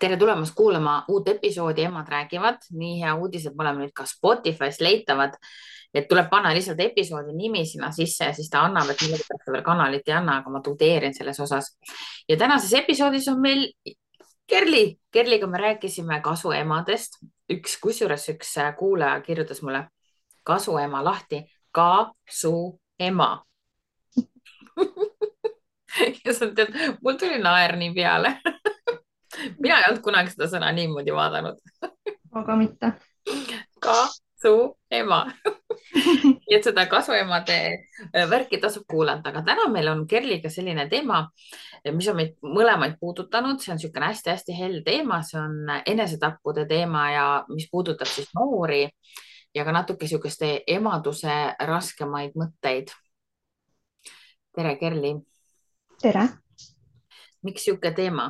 tere tulemast kuulama uut episoodi Emad räägivad. Nii hea uudis, et me oleme nüüd ka Spotify's leitavad, et tuleb panna lihtsalt episoodi nimi sinna sisse ja siis ta annab, et millegipärast ta veel kanalit ei anna, aga ma tudeerin selles osas. Ja tänases episoodis on meil Kerli. Kerliga me rääkisime kasuemadest. Kusjuures üks kuulaja kirjutas mulle kasuema lahti, kasuema. Ja sa tead, mul tuli naer nii peale. Mina ei olnud kunagi seda sõna niimoodi vaadanud. Aga mitte. Kasuema. Nii et seda kasuemade värki tasub kuulata, aga täna meil on Kerliga selline teema, mis on meid mõlemaid puudutanud. See on niisugune hästi-hästi hell teema, see on enesetappude teema ja mis puudutab siis noori ja ka natuke niisuguste emaduse raskemaid mõtteid. Tere, Kerli. Tere. Miks niisugune teema?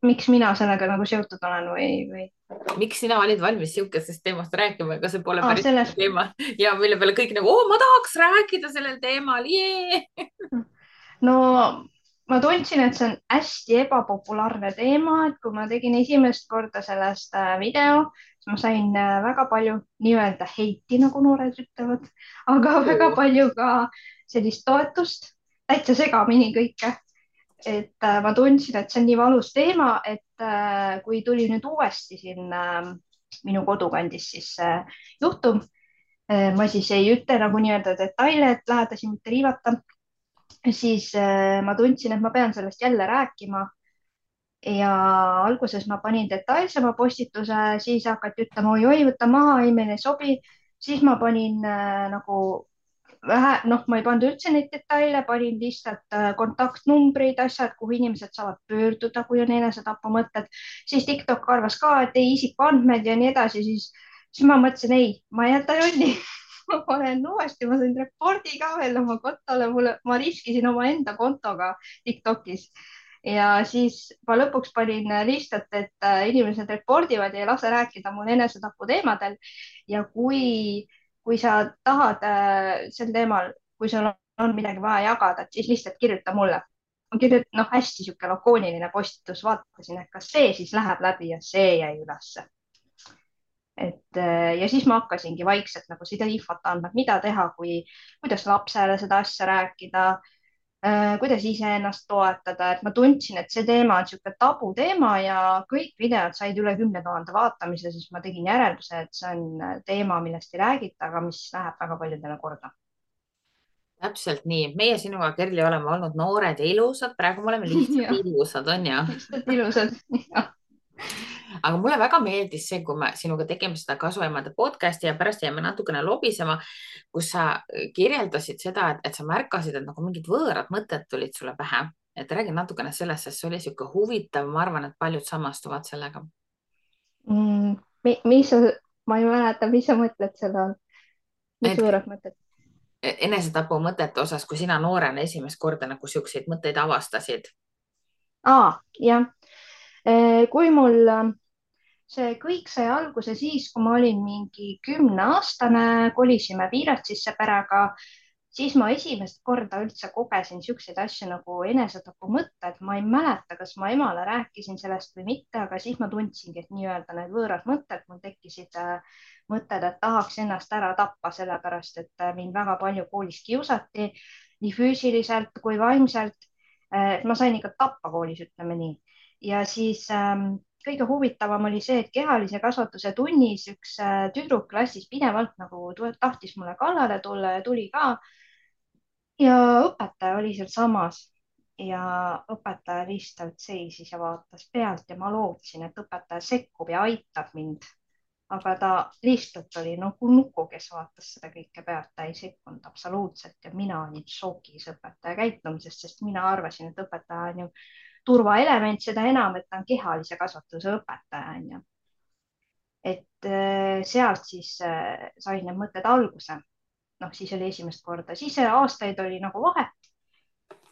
Miks mina sellega nagu seotud olen või? Miks sina olid valmis niisugusest teemast rääkima, ega see pole päris Selles... teema ja mille peale kõik nagu, ma tahaks rääkida sellel teemal, jee! No ma tundsin, et see on hästi ebapopulaarne teema, et kui ma tegin esimest korda sellest video, siis ma sain väga palju nii-öelda heiti, nagu noored ütlevad, aga väga palju ka sellist toetust, täitsa segamini kõike. Et ma tundsin, et see on nii valus teema, et kui tuli nüüd uuesti siin minu kodukandis siis juhtum, ma siis ei ütle nagu nii-öelda detaile, et lähedasi mitte riivata, siis ma tundsin, et ma pean sellest jälle rääkima. Ja alguses ma panin detailsema postituse, siis hakati ütlema, oi, võtta maha, ei, meile ei sobi. Siis ma panin nagu vähe, ma ei pannud üldse neid detaile, panin lihtsalt kontaktnumbrid, asjad, kuhu inimesed saavad pöörduda, kui on enesetapumõtted. Siis TikTok arvas ka, et ei isikuandmed ja nii edasi, siis ma mõtlesin, ei, ma ei jäta jonni. Ma panen uuesti, ma sain repordi ka veel oma kontole, ma riskisin omaenda kontoga TikTokis. Ja siis ma lõpuks panin lihtsalt, et inimesed repordivad ja ei lase rääkida mul enesetapu teemadel. Ja kui sa tahad sel teemal, kui sul on midagi vaja jagada, siis lihtsalt kirjuta mulle. Hästi sihuke lakooniline postitus, vaatasin, et kas see siis läheb läbi ja see jäi ülesse. Ja siis ma hakkasingi vaikselt nagu seda infot andma, mida teha, kuidas lapsele seda asja rääkida, kuidas iseennast toetada, et ma tundsin, et see teema on niisugune tabuteema ja kõik videod said üle 10 000 vaatamise, siis ma tegin järelduse, et see on teema, millest ei räägita, aga mis läheb väga paljudele korda. Täpselt nii. Meie sinuga, Kerli, oleme olnud noored ja ilusad. Praegu me oleme lihtsalt ilusad, on ju? Lihtsalt ilusad. Aga mulle väga meeldis see, kui me sinuga tegime seda kasuemade podcasti ja pärast jäime natukene lobisema, kus sa kirjeldasid seda, et sa märkasid, et nagu mingid võõrad mõtted tulid sulle pähe. Et räägi natukene sellest, sest see oli sihuke huvitav. Ma arvan, et paljud samastuvad sellega. Ma ei mäleta, mis sa mõtled selle all? Mis võõrad mõtted? Enesetapu mõtete osas, kui sina noorena esimest korda nagu siukseid mõtteid avastasid? Jah. Kui mul see kõik sai alguse siis, kui ma olin mingi 10-aastane, kolisime Viiratsisse perega, siis ma esimest korda üldse kogesin niisuguseid asju nagu enesetapu mõtted. Ma ei mäleta, kas ma emale rääkisin sellest või mitte, aga siis ma tundsingi, et nii-öelda need võõrad mõtted, mul tekkisid mõtted, et tahaks ennast ära tappa, sellepärast et mind väga palju koolis kiusati, nii füüsiliselt kui vaimselt. Ma sain ikka tappa koolis, ütleme nii. Ja siis kõige huvitavam oli see, et kehalise kasvatuse tunnis üks tüdruk klassis pidevalt nagu tahtis mulle kallale tulla ja tuli ka. Ja õpetaja oli seal samas ja õpetaja lihtsalt seisis ja vaatas pealt ja ma lootsin, et õpetaja sekkub ja aitab mind. Aga ta lihtsalt oli nagu nuku, kes vaatas seda kõike pealt, ta ei sekkunud absoluutselt ja mina olin šokis õpetaja käitumisest, sest mina arvasin, et õpetaja on ju turvaelement, seda enam, et ta on kehalise kasvatuse õpetaja, on ju. Et sealt siis sain need mõtted alguse. Siis oli esimest korda, siis aastaid oli nagu vahet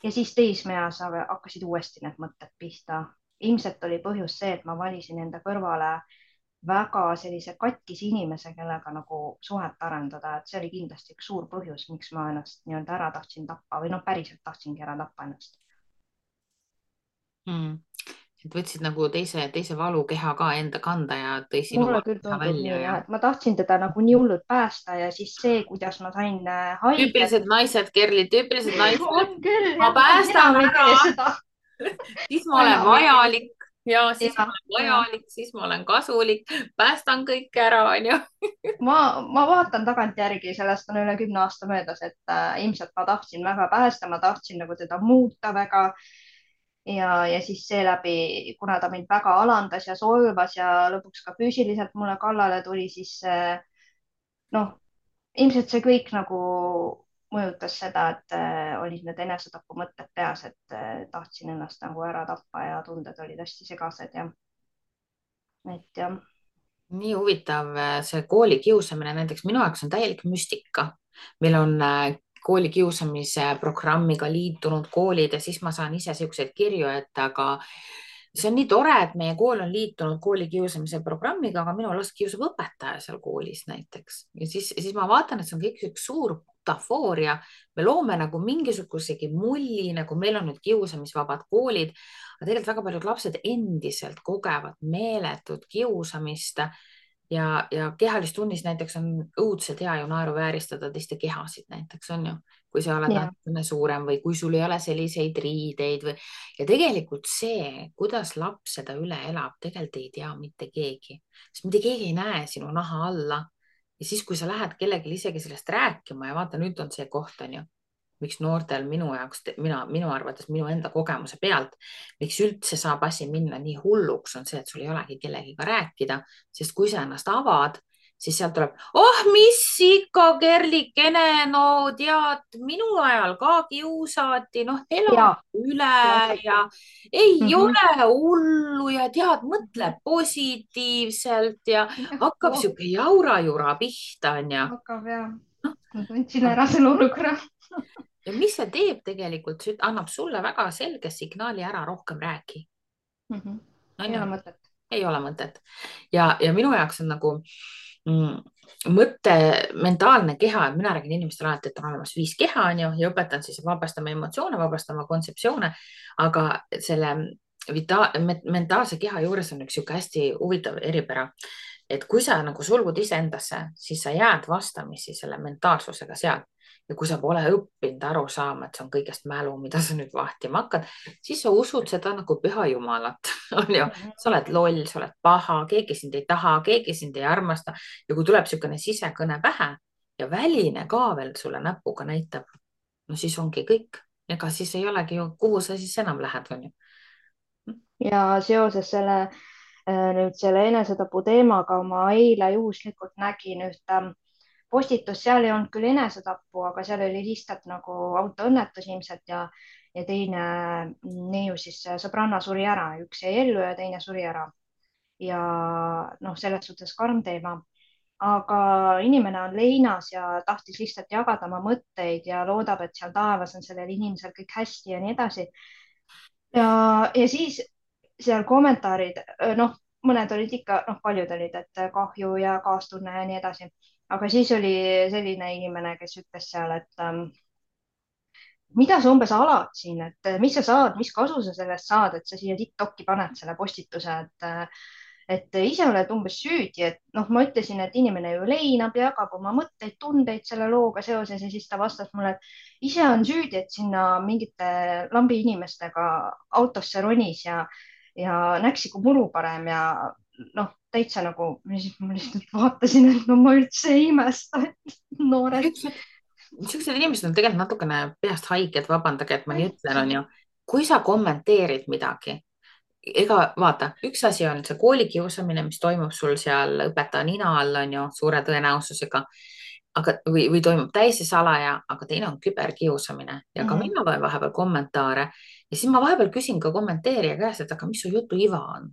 ja siis teismeeas hakkasid uuesti need mõtted pihta. Ilmselt oli põhjus see, et ma valisin enda kõrvale väga sellise katkise inimese, kellega nagu suhet arendada, et see oli kindlasti üks suur põhjus, miks ma ennast nii-öelda ära tahtsin tappa või päriselt tahtsingi ära tappa ennast. mm. Et võtsid nagu teise valukeha ka enda kanda ja tõi sinu mulle küll valukeha tundub välja nii ja jah, et ma tahtsin teda nagu nii hullult päästa ja siis see, kuidas ma sain haiget. tüüpilised naised, Kerli, tüüpilised naised. on küll Ma jah, päästan enam ei ära, tee seda. siis ma ma olen enam ei tee vajalik seda. ja siis ma ja, olen ja vajalik, siis ma olen kasulik, päästan kõik ära, onju. ma vaatan tagantjärgi, sellest on üle 10 aasta möödas, et ilmselt ma tahtsin väga päästa, ma tahtsin nagu teda muuta väga ja siis seeläbi, kuna ta mind väga alandas ja solvas ja lõpuks ka füüsiliselt mulle kallale tuli, siis noh, ilmselt see kõik nagu mõjutas seda, et olid need enesetapumõtted peas, et tahtsin ennast nagu ära tappa ja tunded olid hästi segased ja et jah. Nii huvitav, see koolikiusamine näiteks minu jaoks on täielik müstika. Meil on koolikiusamise programmiga liitunud koolid ja siis ma saan ise siukseid kirju, et aga see on nii tore, et meie kool on liitunud koolikiusamise programmiga, aga minu last kiusab õpetaja seal koolis näiteks. Ja siis ma vaatan, et see on kõik üks suur butafooria. Me loome nagu mingisugusegi mulli, nagu meil on nüüd kiusamisvabad koolid, aga tegelikult väga paljud lapsed endiselt kogevad meeletut kiusamist ja kehalistunnis näiteks on õudselt hea ju naeruvääristada teiste kehasid näiteks on ju, kui sa oled ja, natukene suurem või kui sul ei ole selliseid riideid või ja tegelikult see, kuidas laps seda üle elab, tegelikult ei tea mitte keegi, sest mitte keegi ei näe sinu naha alla. Ja siis, kui sa lähed kellelegi isegi sellest rääkima ja vaata, nüüd on see koht, on ju, miks noortel minu jaoks, minu arvates minu enda kogemuse pealt, miks üldse saab asi minna nii hulluks, on see, et sul ei olegi kellegiga rääkida, sest kui sa ennast avad, siis sealt tuleb, oh, mis ikka, Kerlikene, no tead, minu ajal ka kiusati, noh, ela ja üle klassika. ja ei mm. -hmm. ole hullu ja tead, mõtle positiivselt ja hakkab Oh, sihuke jaura-jura pihta, onju. hakkab ja ma tundsin ära selle olukorra. Ja mis see teeb tegelikult, see annab sulle väga selge signaali ära, rohkem räägi. On ei ju? ole mõtet. Ei ole mõtet. Ja minu jaoks on nagu mõtte, mentaalne keha, et mina räägin inimestele alati, et on olemas 5 keha, on ju, ja õpetan siis vabastama emotsioone, vabastama kontseptsioone, aga selle mentaalse keha juures on üks sihuke hästi huvitav eripära, et kui sa nagu sulgud iseendasse, siis sa jääd vastamisi selle mentaalsusega seal. Ja kui sa pole õppinud aru saama, et see on kõigest mälu, mida sa nüüd vahtima hakkad, siis sa usud seda nagu püha jumalat, on ju. Sa oled loll, sa oled paha, keegi sind ei taha, keegi sind ei armasta. Ja kui tuleb niisugune sisekõne pähe ja väline ka veel sulle näpuga näitab, no siis ongi kõik. Ega siis ei olegi ju, kuhu sa siis enam lähed, on ju. ja seoses nüüd selle enesetapu teemaga ma eile juhuslikult nägin ühte postitust, seal ei olnud küll enesetappu, aga seal oli lihtsalt nagu autoõnnetus ilmselt ja teine neiu siis sõbranna suri ära, üks jäi ellu ja teine suri ära. ja noh, selles suhtes karm teema, aga inimene on leinas ja tahtis lihtsalt jagada oma mõtteid ja loodab, et seal taevas on sellel inimesel kõik hästi ja nii edasi. ja siis seal kommentaarid, noh, mõned olid ikka, noh, paljud olid, et kahju ja kaastunne ja nii edasi. aga siis oli selline inimene, kes ütles seal, et mida sa umbes alad siin, et mis sa saad, mis kasu sa sellest saad, et sa siia TikTok'i paned selle postituse, et ise oled umbes süüdi, et noh, ma ütlesin, et inimene ju leinab ja jagab oma mõtteid, tundeid selle looga seoses ja siis ta vastas mulle, et ise on süüdi, et sinna mingite lambi inimestega autosse ronis ja näksi kui muru parem ja noh, täitsa nagu, ma lihtsalt vaatasin, et no ma üldse ei imesta, et noored. Niisugused inimesed on tegelikult natukene peast haiged, vabandage, et ma nii ütlen, on täitsa. ju. Kui sa kommenteerid midagi, ega vaata, üks asi on see koolikiusamine, mis toimub sul seal õpetaja nina all, on ju, suure tõenäosusega, aga, või toimub täiesti salaja, aga teine on küberkiusamine ja ka mina loen vahepeal kommentaare ja siis ma vahepeal küsin ka kommenteerija käest, et aga mis su jutu iva on?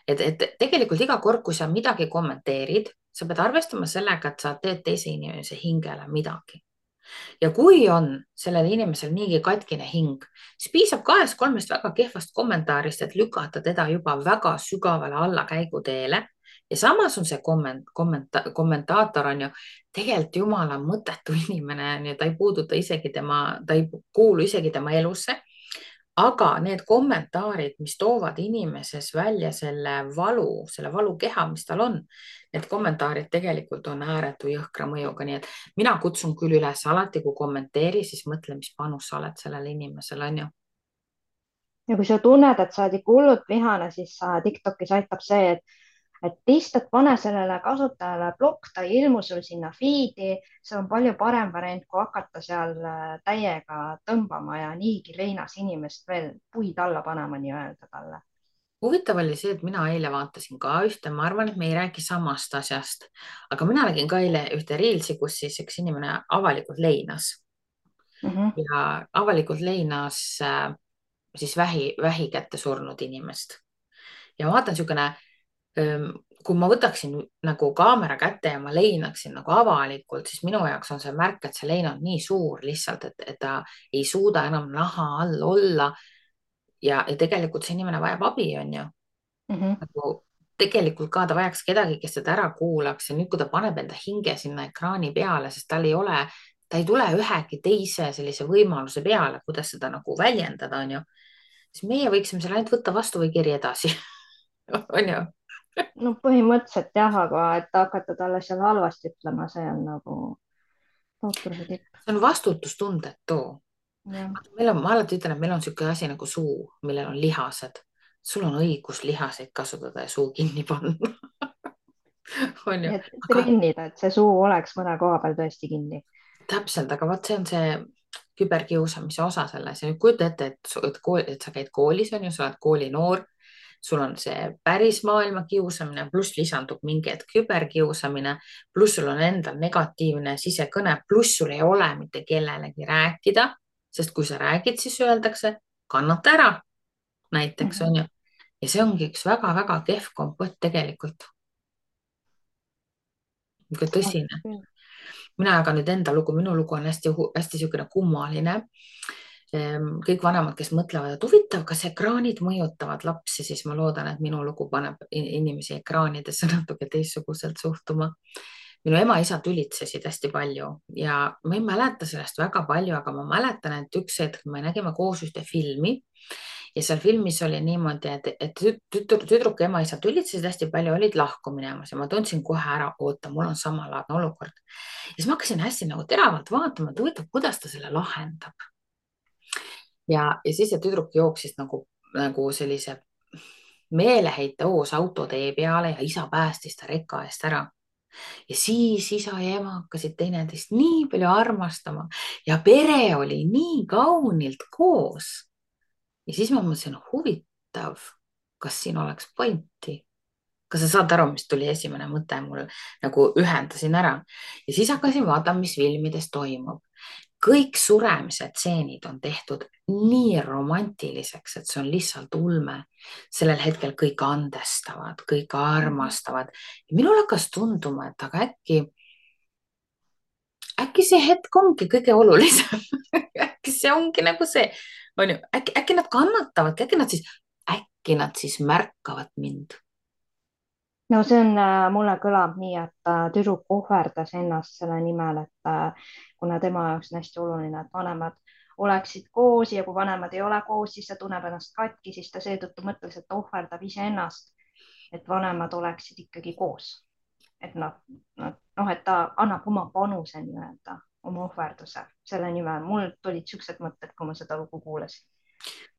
Et tegelikult iga kord, kui sa midagi kommenteerid, sa pead arvestama sellega, et sa teed teise inimese hingele midagi. Ja kui on sellel inimesel niigi katkine hing, siis piisab 2-3 väga kehvast kommentaarist, et lükata teda juba väga sügavale allakäiguteele. Ja samas on see kommentaator on ju tegelikult jumala mõttetu inimene, ta ei puuduta isegi ta ei kuulu isegi tema elusse. aga need kommentaarid, mis toovad inimeses välja selle valukeha, mis tal on, need kommentaarid tegelikult on ääretu jõhkra mõjuga, nii et mina kutsun küll üles alati, kui kommenteeri, siis mõtle, mis panus sa oled sellele inimesele, on ju. ja kui sa tunned, et sa oled ikka hullult vihane, siis TikTokis aitab see, et lihtsalt pane sellele kasutajale plokk, ta ei ilmu sul sinna feed'i, see on palju parem variant, kui hakata seal täiega tõmbama ja niigi leinas inimest veel puid alla panema nii-öelda talle. Huvitav oli see, et mina eile vaatasin ka ühte, ma arvan, et me ei räägi samast asjast, aga mina nägin ka eile ühte reelsi, kus siis üks inimene avalikult leinas Mhm, ja avalikult leinas siis vähi kätte surnud inimest. Ja ma vaatan niisugune, kui ma võtaksin nagu kaamera kätte ja ma leinaksin nagu avalikult, siis minu jaoks on see märk, et see lein on nii suur lihtsalt, et ta ei suuda enam naha all olla. Ja tegelikult see inimene vajab abi, on ju. mhm. Nagu tegelikult ka ta vajaks kedagi, kes teda ära kuulaks ja nüüd, kui ta paneb enda hinge sinna ekraani peale, sest tal ei ole, ta ei tule ühegi teise sellise võimaluse peale, kuidas seda nagu väljendada, on ju. Siis meie võiksime selle ainult võtta vastu või kiri edasi on ju. No põhimõtteliselt jah, aga et hakata talle seal halvasti ütlema, see on nagu tootruse tipp. See on vastutustundetu. Jah. Ma alati ütlen, et meil on niisugune asi nagu suu, millel on lihased. Sul on õigus lihaseid kasutada ja suu kinni panna on ju, Nii et aga trennida, et see suu oleks mõne koha peal tõesti kinni. täpselt, aga vot see on see küberkiusamise osa selles ja nüüd kujuta ette, et sa käid koolis, on ju, sa oled koolinoor, sul on see päris maailma kiusamine, pluss lisandub mingi hetk küberkiusamine, pluss sul on endal negatiivne sisekõne, pluss sul ei ole mitte kellelegi rääkida, sest kui sa räägid, siis öeldakse, kannata ära, näiteks Mhm. on ju. Ja see ongi üks väga-väga kehv kompott tegelikult, niisugune tõsine. Mina jagan nüüd enda lugu, minu lugu on hästi niisugune kummaline. Kõik vanemad, kes mõtlevad, et huvitav, kas ekraanid mõjutavad lapsi, siis ma loodan, et minu lugu paneb inimesi ekraanidesse natuke teistsuguselt suhtuma. Minu ema-isa tülitsesid hästi palju ja ma ei mäleta sellest väga palju, aga ma mäletan, et üks hetk me nägime koos ühte filmi ja seal filmis oli niimoodi, et tüdruk ja ema-isa tülitsesid hästi palju, olid lahku minemas ja ma tundsin kohe ära, oota, mul on samalaadne olukord. Ja siis ma hakkasin hästi nagu teravalt vaatama, et huvitav, kuidas ta selle lahendab. Ja siis see tüdruk jooksis nagu sellise meeleheite hoos autotee peale ja isa päästis ta reka eest ära. Ja siis isa ja ema hakkasid teineteist nii palju armastama ja pere oli nii kaunilt koos. Ja siis ma mõtlesin, huvitav, kas siin oleks pointi? Kas sa saad aru, mis tuli esimene mõte mul, nagu ühendasin ära ja siis hakkasin vaatama, mis filmides toimub. Kõik suremise tseenid on tehtud nii romantiliseks, et see on lihtsalt ulme. Sellel hetkel kõik andestavad, kõik armastavad. Minul hakkas tunduma, et aga äkki see hetk ongi kõige olulisem äkki see ongi nagu see, on ju, äkki nad kannatavadki, äkki nad siis märkavad mind. No see on, mulle kõlab nii, et tüdruk ohverdas ennast selle nimel, et kuna tema jaoks on hästi oluline, et vanemad oleksid koos ja kui vanemad ei ole koos, siis ta tunneb ennast katki, siis ta seetõttu mõtles, et ta ohverdab iseennast, et vanemad oleksid ikkagi koos. Et noh, et ta annab oma panuse nii-öelda, oma ohverduse selle nimel. Mul tulid siuksed mõtted, kui ma seda lugu kuulasin.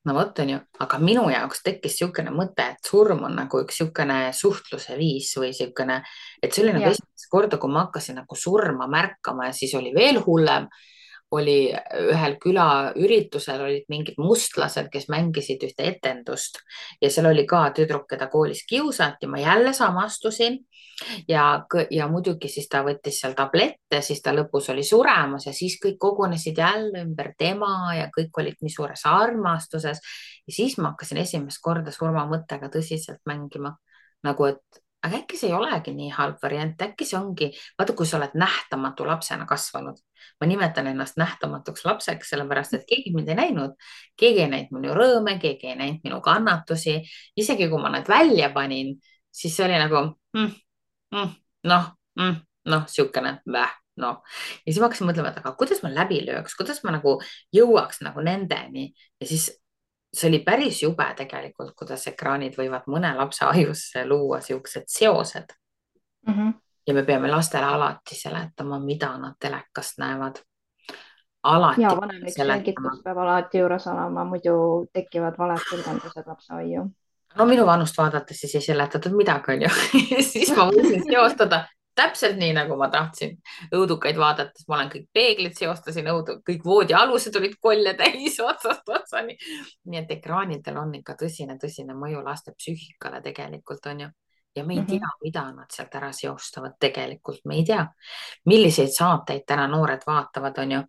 No vot on ju, aga minu jaoks tekkis niisugune mõte, et surm on nagu üks niisugune suhtluse viis või niisugune, et see oli nagu Jah. esimest korda, kui ma hakkasin nagu surma märkama ja siis oli veel hullem. Oli ühel külaüritusel olid mingid mustlased, kes mängisid ühte etendust ja seal oli ka tüdruk, keda koolis kiusati, ma jälle samastusin ja muidugi siis ta võttis seal tablette, siis ta lõpus oli suremas ja siis kõik kogunesid jälle ümber tema ja kõik olid nii suures armastuses. Ja siis ma hakkasin esimest korda surmamõttega tõsiselt mängima. Nagu, et aga äkki see ei olegi nii halb variant, äkki see ongi, vaata, kui sa oled nähtamatu lapsena kasvanud. Ma nimetan ennast nähtamatuks lapseks, sellepärast et keegi mind ei näinud. Keegi ei näinud minu rõõme, keegi ei näinud minu kannatusi. Isegi kui ma nad välja panin, siis see oli nagu mm, noh niisugune noh. Ja siis ma hakkasin mõtlema, et aga kuidas ma läbi lööks, kuidas ma nagu jõuaks nagu nendeni ja siis see oli päris jube tegelikult, kuidas ekraanid võivad mõne lapse ajusse luua siuksed seosed Mhm. ja me peame lastele alati seletama, mida nad telekast näevad. Alati Ja vanemlik seletama. selgitus peab alati juures olema, muidu tekivad valed tõlgendused lapse aiu. No minu vanust vaadates siis ei seletatud midagi, onju. Siis ma võisin seostada täpselt nii, nagu ma tahtsin. Õudukaid vaadates ma olen kõik peeglid seostasin, kõik voodialused olid kolle täis otsast otsani. Nii et ekraanidel on ikka tõsine mõju laste psüühikale tegelikult, onju. Ja me ei Mhm. tea, mida nad sealt ära seostavad tegelikult. Me ei tea, milliseid saateid täna noored vaatavad, onju.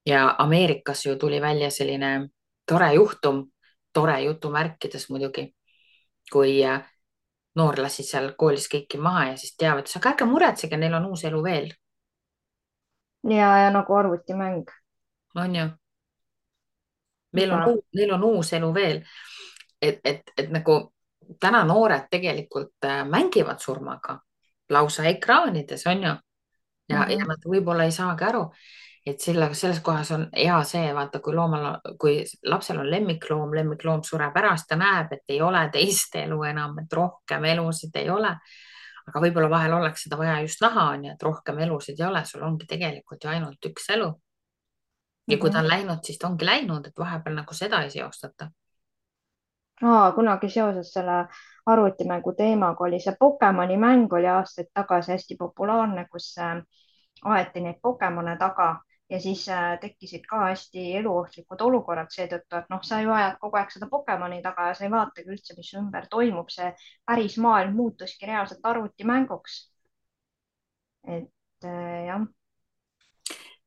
Ja Ameerikas ju tuli välja selline tore juhtum, tore jutumärkides muidugi, kui noor lasi seal koolis kõiki maha ja siis teavitas, aga ärge muretsege, neil on uus elu veel, Ja nagu arvutimäng on ju. juba. Neil on uus elu veel. Et nagu täna noored tegelikult mängivad surmaga lausa ekraanides, on ju. Ja Mhm. nad võib-olla ei saagi aru, et selles kohas on hea see, vaata, kui lapsel on lemmikloom sureb ära, siis ta näeb, et ei ole teist elu enam, et rohkem elusid ei ole. Aga võib-olla vahel oleks seda vaja just näha, on ju, et rohkem elusid ei ole, sul ongi tegelikult ju ainult üks elu. Ja kui ta Mhm. on läinud, siis ta ongi läinud, et vahepeal nagu seda ei seostata. Kunagi seoses selle arvutimängu teemaga oli see Pokemoni mäng oli aastaid tagasi hästi populaarne, kus aeti neid Pokemone taga ja siis tekkisid ka hästi eluohtlikud olukorrad seetõttu, et noh, sa ju ajad kogu aeg seda Pokemoni taga ja sa ei vaatagi üldse, mis ümber toimub. See päris maailm muutuski reaalselt arvutimänguks. Et jah.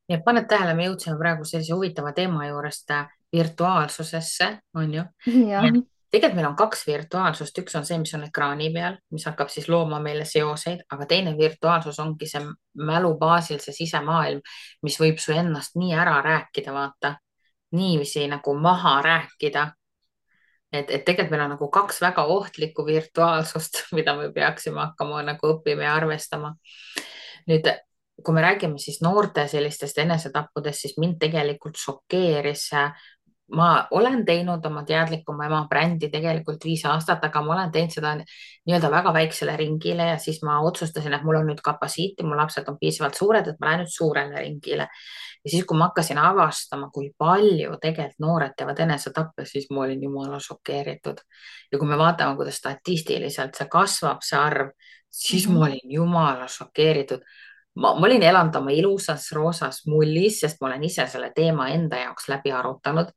ja paned tähele, me jõudsime praegu sellise huvitava teema juurest virtuaalsusesse, on ju. jah. Tegelikult meil on kaks virtuaalsust, üks on see, mis on ekraani peal, mis hakkab siis looma meile seoseid, aga teine virtuaalsus ongi see mälu baasil, see sisemaailm, mis võib su ennast nii ära rääkida, vaata, niiviisi nagu maha rääkida. Et tegelikult meil on nagu kaks väga ohtlikku virtuaalsust, mida me peaksime hakkama nagu õppima ja arvestama. Nüüd, kui me räägime siis noorte sellistest enesetappudest, siis mind tegelikult šokeeris. Ma olen teinud oma teadlikuma ema brändi tegelikult 5 aastat, aga ma olen teinud seda nii-öelda väga väiksele ringile ja siis ma otsustasin, et mul on nüüd kapatsiiti, mu lapsed on piisavalt suured, et ma lähen nüüd suurele ringile. Ja siis, kui ma hakkasin avastama, kui palju tegelikult noored teevad enesetappe, siis ma olin jumala šokeeritud. Ja kui me vaatame, kuidas statistiliselt see kasvab, see arv, siis Mhm. ma olin jumala šokeeritud. Ma olin elanud oma ilusas roosas mullis, sest ma olen ise selle teema enda jaoks läbi arutanud,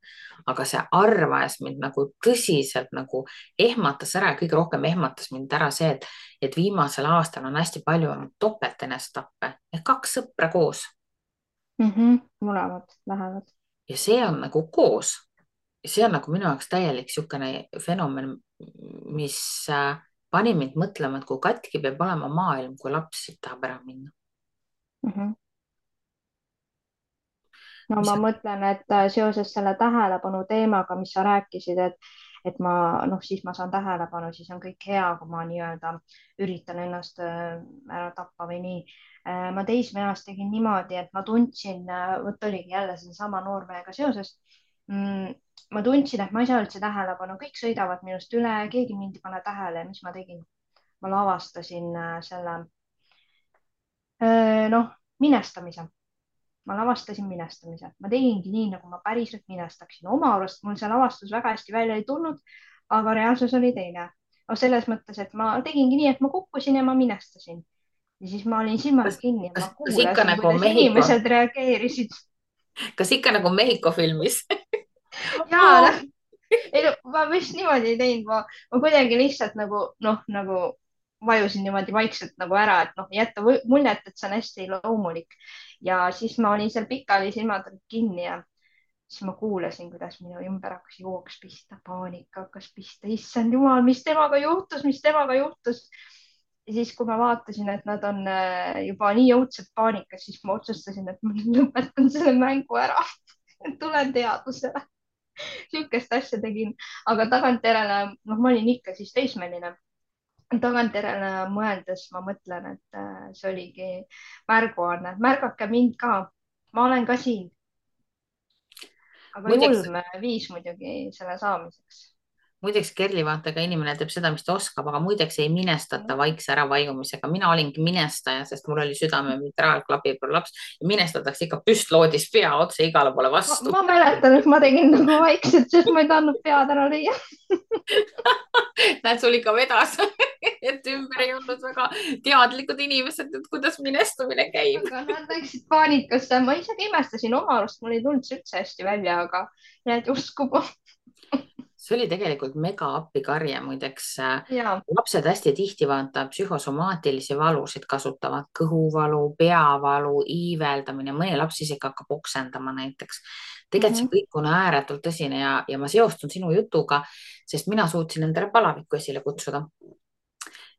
aga see arv ajas mind nagu tõsiselt nagu ehmatas ära ja kõige rohkem ehmatas mind ära see, et viimasel aastal on hästi palju olnud topeltenestappe ehk kaks sõpra koos Mõlemad lähevad. ja see on nagu koos. See on nagu minu jaoks täielik niisugune fenomen, mis pani mind mõtlema, et kui katki peab olema maailm, kui laps siit tahab ära minna. Mhm. No mis ma mõtlen, et seoses selle tähelepanu teemaga, mis sa rääkisid, et ma noh, siis ma saan tähelepanu, siis on kõik hea, kui ma nii-öelda üritan ennast ära tappa või nii. Ma teismeeas tegin niimoodi, et ma tundsin, vot oligi jälle seesama noormehega seoses. Ma tundsin, et ma ei saa üldse tähelepanu, kõik sõidavad minust üle, keegi mind ei pane tähele ja mis ma tegin? Ma lavastasin selle noh, minestamise. Ma lavastasin minestamise, ma tegingi nii, nagu ma päriselt minestaksin. Oma arust mul see lavastus väga hästi välja ei tulnud, aga reaalsus oli teine. No selles mõttes, et ma tegingi nii, et ma kukkusin ja ma minestasin ja siis ma olin silmad kas, kinni ja ma kas ikka kuulasin, nagu kuidas Mehhiko, inimesed reageerisid. kas ikka nagu Mehhiko filmis? Ja noh, ei no ma vist niimoodi ei teinud, ma kuidagi lihtsalt nagu noh, nagu vajusin niimoodi vaikselt nagu ära, et noh, jätta muljet, et see on hästi loomulik. Ja siis ma olin seal pikali, silmad olid kinni ja siis ma kuulasin, kuidas minu ümber hakkas jooks pista, paanika hakkas pista, issand jumal, mis temaga juhtus, mis temaga juhtus. Ja siis, kui ma vaatasin, et nad on juba nii õudselt paanikas, siis ma otsustasin, et ma lõpetan selle mängu ära. Tulen teadusele. Sihukest asja tegin, aga tagantjärele, noh, ma olin ikka siis teismeline. Tagantjärele mõeldes ma mõtlen, et see oligi märguanne, märgake mind ka. Ma olen ka siin. aga muideks, julm viis muidugi selle saamiseks. muideks Kerli, vaata, ka inimene teeb seda, mis ta oskab, aga muideks ei minestata vaikse äravajumisega. Mina olingi minestaja, sest mul oli südame mitraalklapi prolaps ja minestatakse ikka püstloodis pea otse igale poole vastu. Ma mäletan, et ma tegin nagu vaikselt, sest ma ei tahtnud pead ära lüüa. näed, sul ikka vedas et ümber ei olnud väga teadlikud inimesed, et kuidas minestumine käib. aga nad läksid paanikasse, ma isegi imestasin oma arust, mul ei tulnud see üldse hästi välja, aga jääd uskuma. see oli tegelikult mega appikarje, muideks. ja. lapsed hästi tihti vaata psühhosomaatilisi valusid kasutavad, kõhuvalu, peavalu, iiveldamine, mõni laps isegi hakkab oksendama näiteks. tegelikult see kõik on ääretult tõsine ja ma seostun sinu jutuga, sest mina suutsin endale palavikku esile kutsuda.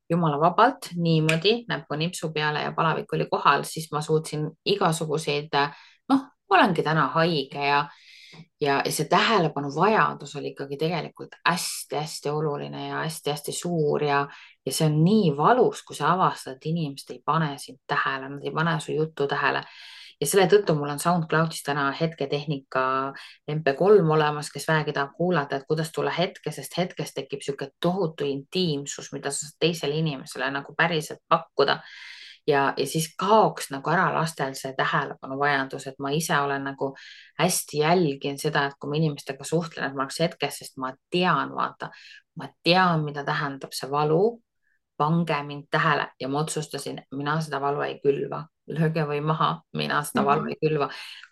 Jumala vabalt niimoodi näppu nipsu peale ja palavik oli kohal, siis ma suutsin igasuguseid, noh, olengi täna haige ja see tähelepanu vajadus oli ikkagi tegelikult hästi-hästi oluline ja hästi-hästi suur ja see on nii valus, kui sa avastad, et inimesed ei pane sind tähele, nad ei pane su juttu tähele. Ja selle tõttu mul on SoundCloudis täna hetketehnika MP3 olemas, kes vähegi tahab kuulata, et kuidas tulla hetke, sest hetkest tekib niisugune tohutu intiimsus, mida sa saad teisele inimesele nagu päriselt pakkuda. Ja siis kaoks nagu ära lastel see tähelepanuvajadus, et ma ise olen nagu hästi jälgin seda, et kui ma inimestega suhtlen, et ma oleks hetkes, sest ma tean, vaata, ma tean, mida tähendab see valu. Pange mind tähele ja ma otsustasin, mina seda valu ei külva, lööge või maha, mina seda valu ei külva.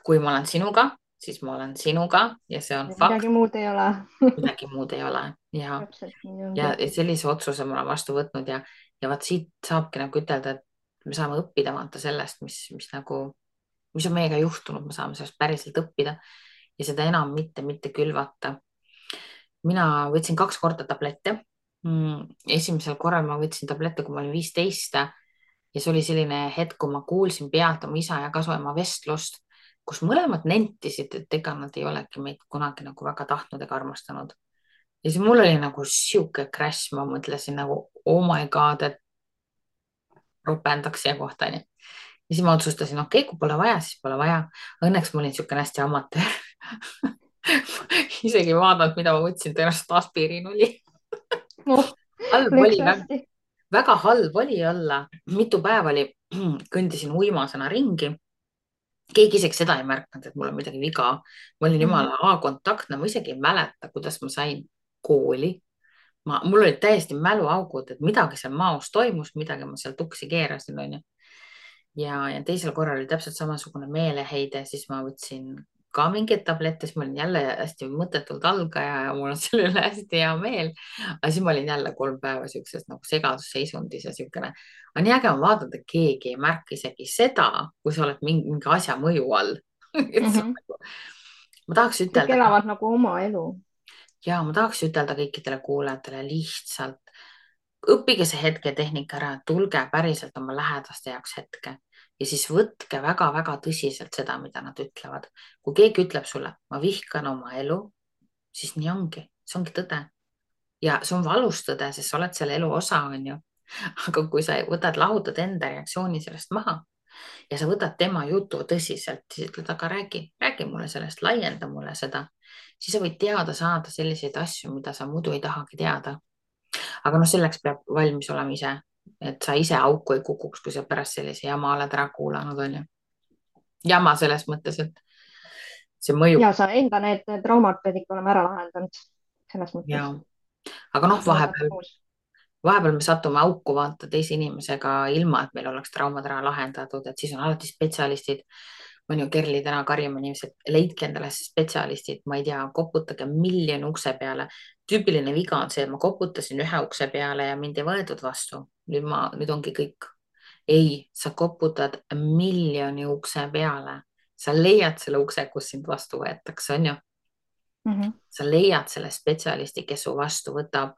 Kui ma olen sinuga, siis ma olen sinuga ja see on fakt. midagi muud ei ole. midagi muud ei ole ja, täpselt nii ongi. ja sellise otsuse ma olen vastu võtnud ja vaat siit saabki nagu ütelda, et me saame õppida vaata sellest, mis nagu, mis on meiega juhtunud, me saame sellest päriselt õppida ja seda enam mitte külvata. Mina võtsin 2 korda tablette. Esimesel korral ma võtsin tablette, kui ma olin 15 ja see oli selline hetk, kui ma kuulsin pealt oma isa ja kasuema vestlust, kus mõlemad nentisid, et ega nad ei olegi meid kunagi nagu väga tahtnud ega armastanud. Ja siis mul oli nagu siuke crash, ma mõtlesin nagu oh my god, et ropendaks siia kohta. Ja siis ma otsustasin, okei, kui pole vaja, siis pole vaja. Õnneks ma olin niisugune hästi amatöör. Isegi vaadanud, mida ma võtsin, tõenäoliselt aspiriin oli. halb oli, väga halb oli olla. Mitu päeva oli, kõndisin uimasena ringi. Keegi isegi seda ei märkanud, et mul on midagi viga. Ma olin jumala A-kontaktne, ma isegi ei mäleta, kuidas ma sain kooli. Mul olid täiesti mäluaugud, et midagi seal maos toimus, midagi ma seal tuksi keerasin, onju. Ja teisel korral oli täpselt samasugune meeleheide, siis ma võtsin ka mingeid tablette, siis ma olin jälle hästi mõttetult algaja ja mul on selle üle hästi hea meel. Aga siis ma olin jälle 3 päeva siukses nagu segadusseisundis ja siukene. aga nii äge on vaadata, et keegi ei märka isegi seda, kui sa oled mingi asja mõju all. ma tahaks ütelda. kõik elavad nagu oma elu. Ja ma tahaks ütelda kõikidele kuulajatele lihtsalt õppige see hetketehnika ära, tulge päriselt oma lähedaste jaoks hetke ja siis võtke väga-väga tõsiselt seda, mida nad ütlevad. Kui keegi ütleb sulle, ma vihkan oma elu, siis nii ongi, see ongi tõde. Ja see on valus tõde, sest sa oled selle elu osa, on ju. Aga kui sa võtad, lahutad enda reaktsiooni sellest maha ja sa võtad tema jutu tõsiselt, siis ütled, aga räägi mulle sellest, laienda mulle seda, siis sa võid teada saada selliseid asju, mida sa muidu ei tahagi teada. Aga noh, selleks peab valmis olema ise, et sa ise auku ei kukuks, kui sa pärast sellise jama oled ära kuulanud, on ju. Jama selles mõttes, et see mõjub. Ja sa enda need traumad pead ikka olema ära lahendanud. Selles mõttes. Ja. Aga noh, vahepeal me satume auku vaata teise inimesega ilma, et meil oleks traumad ära lahendatud, et siis on alati spetsialistid. On ju Kerli täna karjama inimesed, leidke endale spetsialistid, ma ei tea, koputage miljoni ukse peale. Tüüpiline viga on see, et ma koputasin 1 ukse peale ja mind ei võetud vastu. Nüüd ongi kõik. Ei, sa koputad miljoni ukse peale. Sa leiad selle ukse, kus sind vastu võetakse, on ju? Sa leiad selle spetsialisti, kes su vastu võtab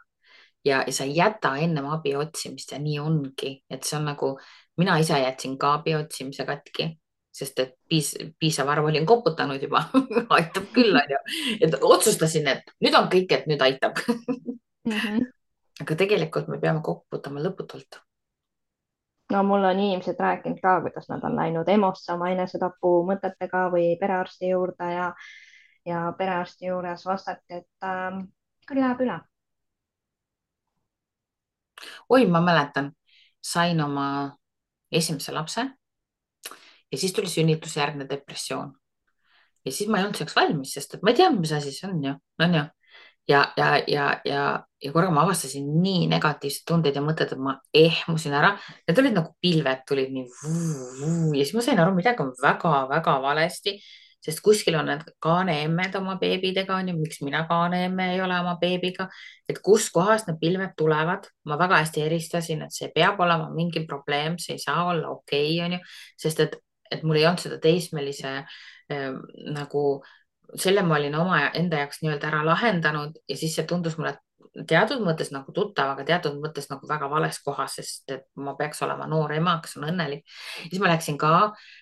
ja sa ei jäta ennem abi otsimist ja nii ongi. Et see on nagu, mina ise jätsin ka abi otsimise katki, sest et piisav arv olin koputanud juba. Aitab küll, on ju. Et otsustasin, et nüüd on kõik, et nüüd aitab. Aga tegelikult me peame koputama lõputult. No mul on inimesed rääkinud ka, kuidas nad on läinud EMO-sse oma enesetapu mõtetega või perearsti juurde ja perearsti juures vastati, et küll läheb üle. oi, ma mäletan, sain oma esimese lapse ja siis tuli sünnitusjärgne depressioon. Ja siis ma ei olnud selleks valmis, sest et ma ei tea, mis asi see on ju. Ja korraga ma avastasin nii negatiivseid tundeid ja mõtted, et ma ehmusin ära. Need olid nagu pilved tulid nii vuu. Ja siis ma sain aru, midagi on väga-väga valesti, sest kuskil on need kaaneemmed oma beebidega, on ju, miks mina kaaneemme ei ole oma beebiga, et kuskohast need pilved tulevad. Ma väga hästi eristasin, et see peab olema mingi probleem, see ei saa olla okei, on ju, sest et mul ei olnud seda teismelise nagu selle ma olin oma enda jaoks nii-öelda ära lahendanud ja siis see tundus mulle teatud mõttes nagu tuttav, aga teatud mõttes nagu väga vales kohas, sest et ma peaks olema noor ema, kes on õnnelik. Siis ma läksin ka,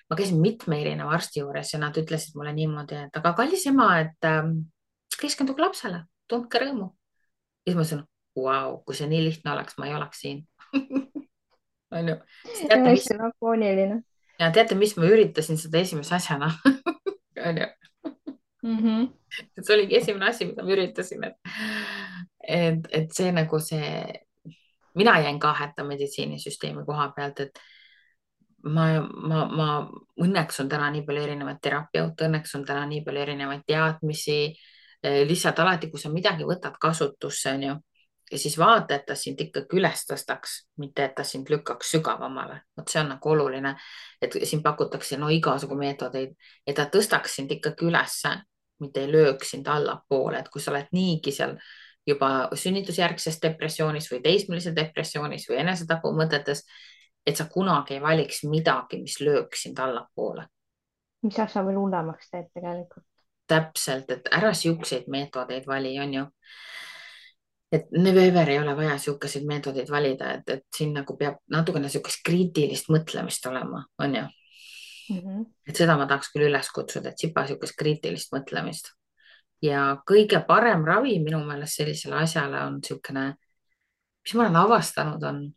ma käisin mitme erineva arsti juures ja nad ütlesid mulle niimoodi, et aga kallis ema, et keskenduge lapsele, tundke rõõmu. Ja siis ma ütlesin, vau, kui see nii lihtne oleks, ma ei oleks siin. On ju, siis teate, mis, hästi lakooniline ja teate, mis ma üritasin seda esimese asjana. On ju, mm. -hmm. et see oligi esimene asi, mida ma üritasin, et see nagu see, mina jäin ka hätta meditsiinisüsteemi koha pealt, et ma õnneks on täna nii palju erinevaid terapeuta, õnneks on täna nii palju erinevaid teadmisi. Lihtsalt alati, kui sa midagi võtad kasutusse, on ju, ja siis vaata, et ta sind ikkagi üles tõstaks, mitte et ta sind lükkaks sügavamale. Vot see on nagu oluline, et siin pakutakse no igasugu meetodeid, et ta tõstaks sind ikkagi ülesse, mitte ei lööks sind allapoole, et kui sa oled niigi seal juba sünnitusjärgses depressioonis või teismelises depressioonis või enesetapumõtetes, et sa kunagi ei valiks midagi, mis lööks sind allapoole. mis asja veel hullemaks teeb tegelikult. Täpselt, et ära siukseid meetodeid vali, on ju. Et never ei ole vaja siukeseid meetodeid valida, et siin nagu peab natukene siukest kriitilist mõtlemist olema, on ju. Mm -hmm. Et seda ma tahaks küll üles kutsuda, et sipa siukest kriitilist mõtlemist. Ja kõige parem ravi minu meelest sellisele asjale on siukene, mis ma olen avastanud, on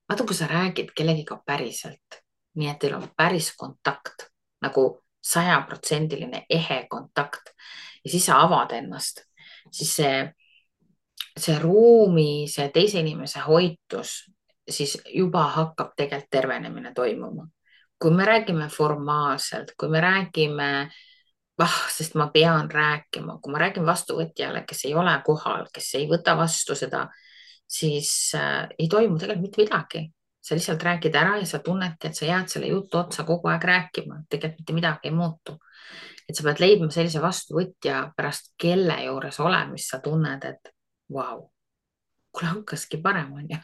vaata, kui sa räägid kellegiga päriselt, nii et teil on päris kontakt, nagu 100% ehe kontakt ja siis sa avad ennast, siis see ruumi, see teise inimese hoitus, siis juba hakkab tegelikult tervenemine toimuma. Kui me räägime formaalselt, kui me räägime, sest ma pean rääkima, kui ma räägin vastuvõtjale, kes ei ole kohal, kes ei võta vastu seda, siis ei toimu tegelikult mitte midagi. Sa lihtsalt räägid ära ja sa tunnedki, et sa jääd selle jutu otsa kogu aeg rääkima, tegelikult mitte midagi ei muutu. Et sa pead leidma sellise vastuvõtja, pärast kelle juures olemist sa tunned, et vau, kuule hakkaski parem, on ju.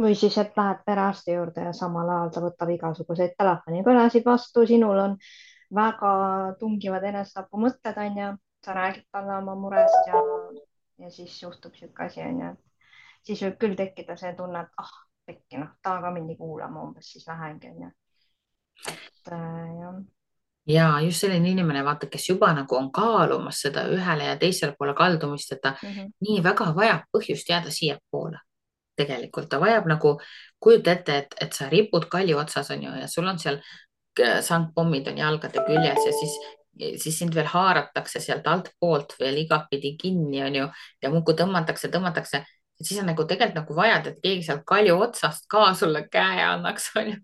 või siis, et lähed perearsti juurde ja samal ajal ta võtab igasuguseid telefonikõnesid vastu, sinul on väga tungivad enesetapumõtted, on ju, sa räägid talle oma murest ja siis juhtub niisugune asi, on ju, siis võib küll tekkida see tunne, et pekki, noh, ta ka mind ei kuula, ma umbes siis lähengi, on ju. et jah. Ja just selline inimene, vaata, kes juba nagu on kaalumas seda ühele ja teisele poole kaldumist, et ta nii väga vajab põhjust jääda siiapoole. Tegelikult ta vajab nagu, kujuta ette, et sa ripud kalju otsas, on ju, ja sul on seal sangpommid on jalgade küljes ja siis sind veel haaratakse sealt altpoolt veel igatpidi kinni, on ju, ja muudkui tõmmatakse. Et siis on nagu tegelikult nagu vajad, et keegi sealt kalju otsast ka sulle käe annaks, on ju.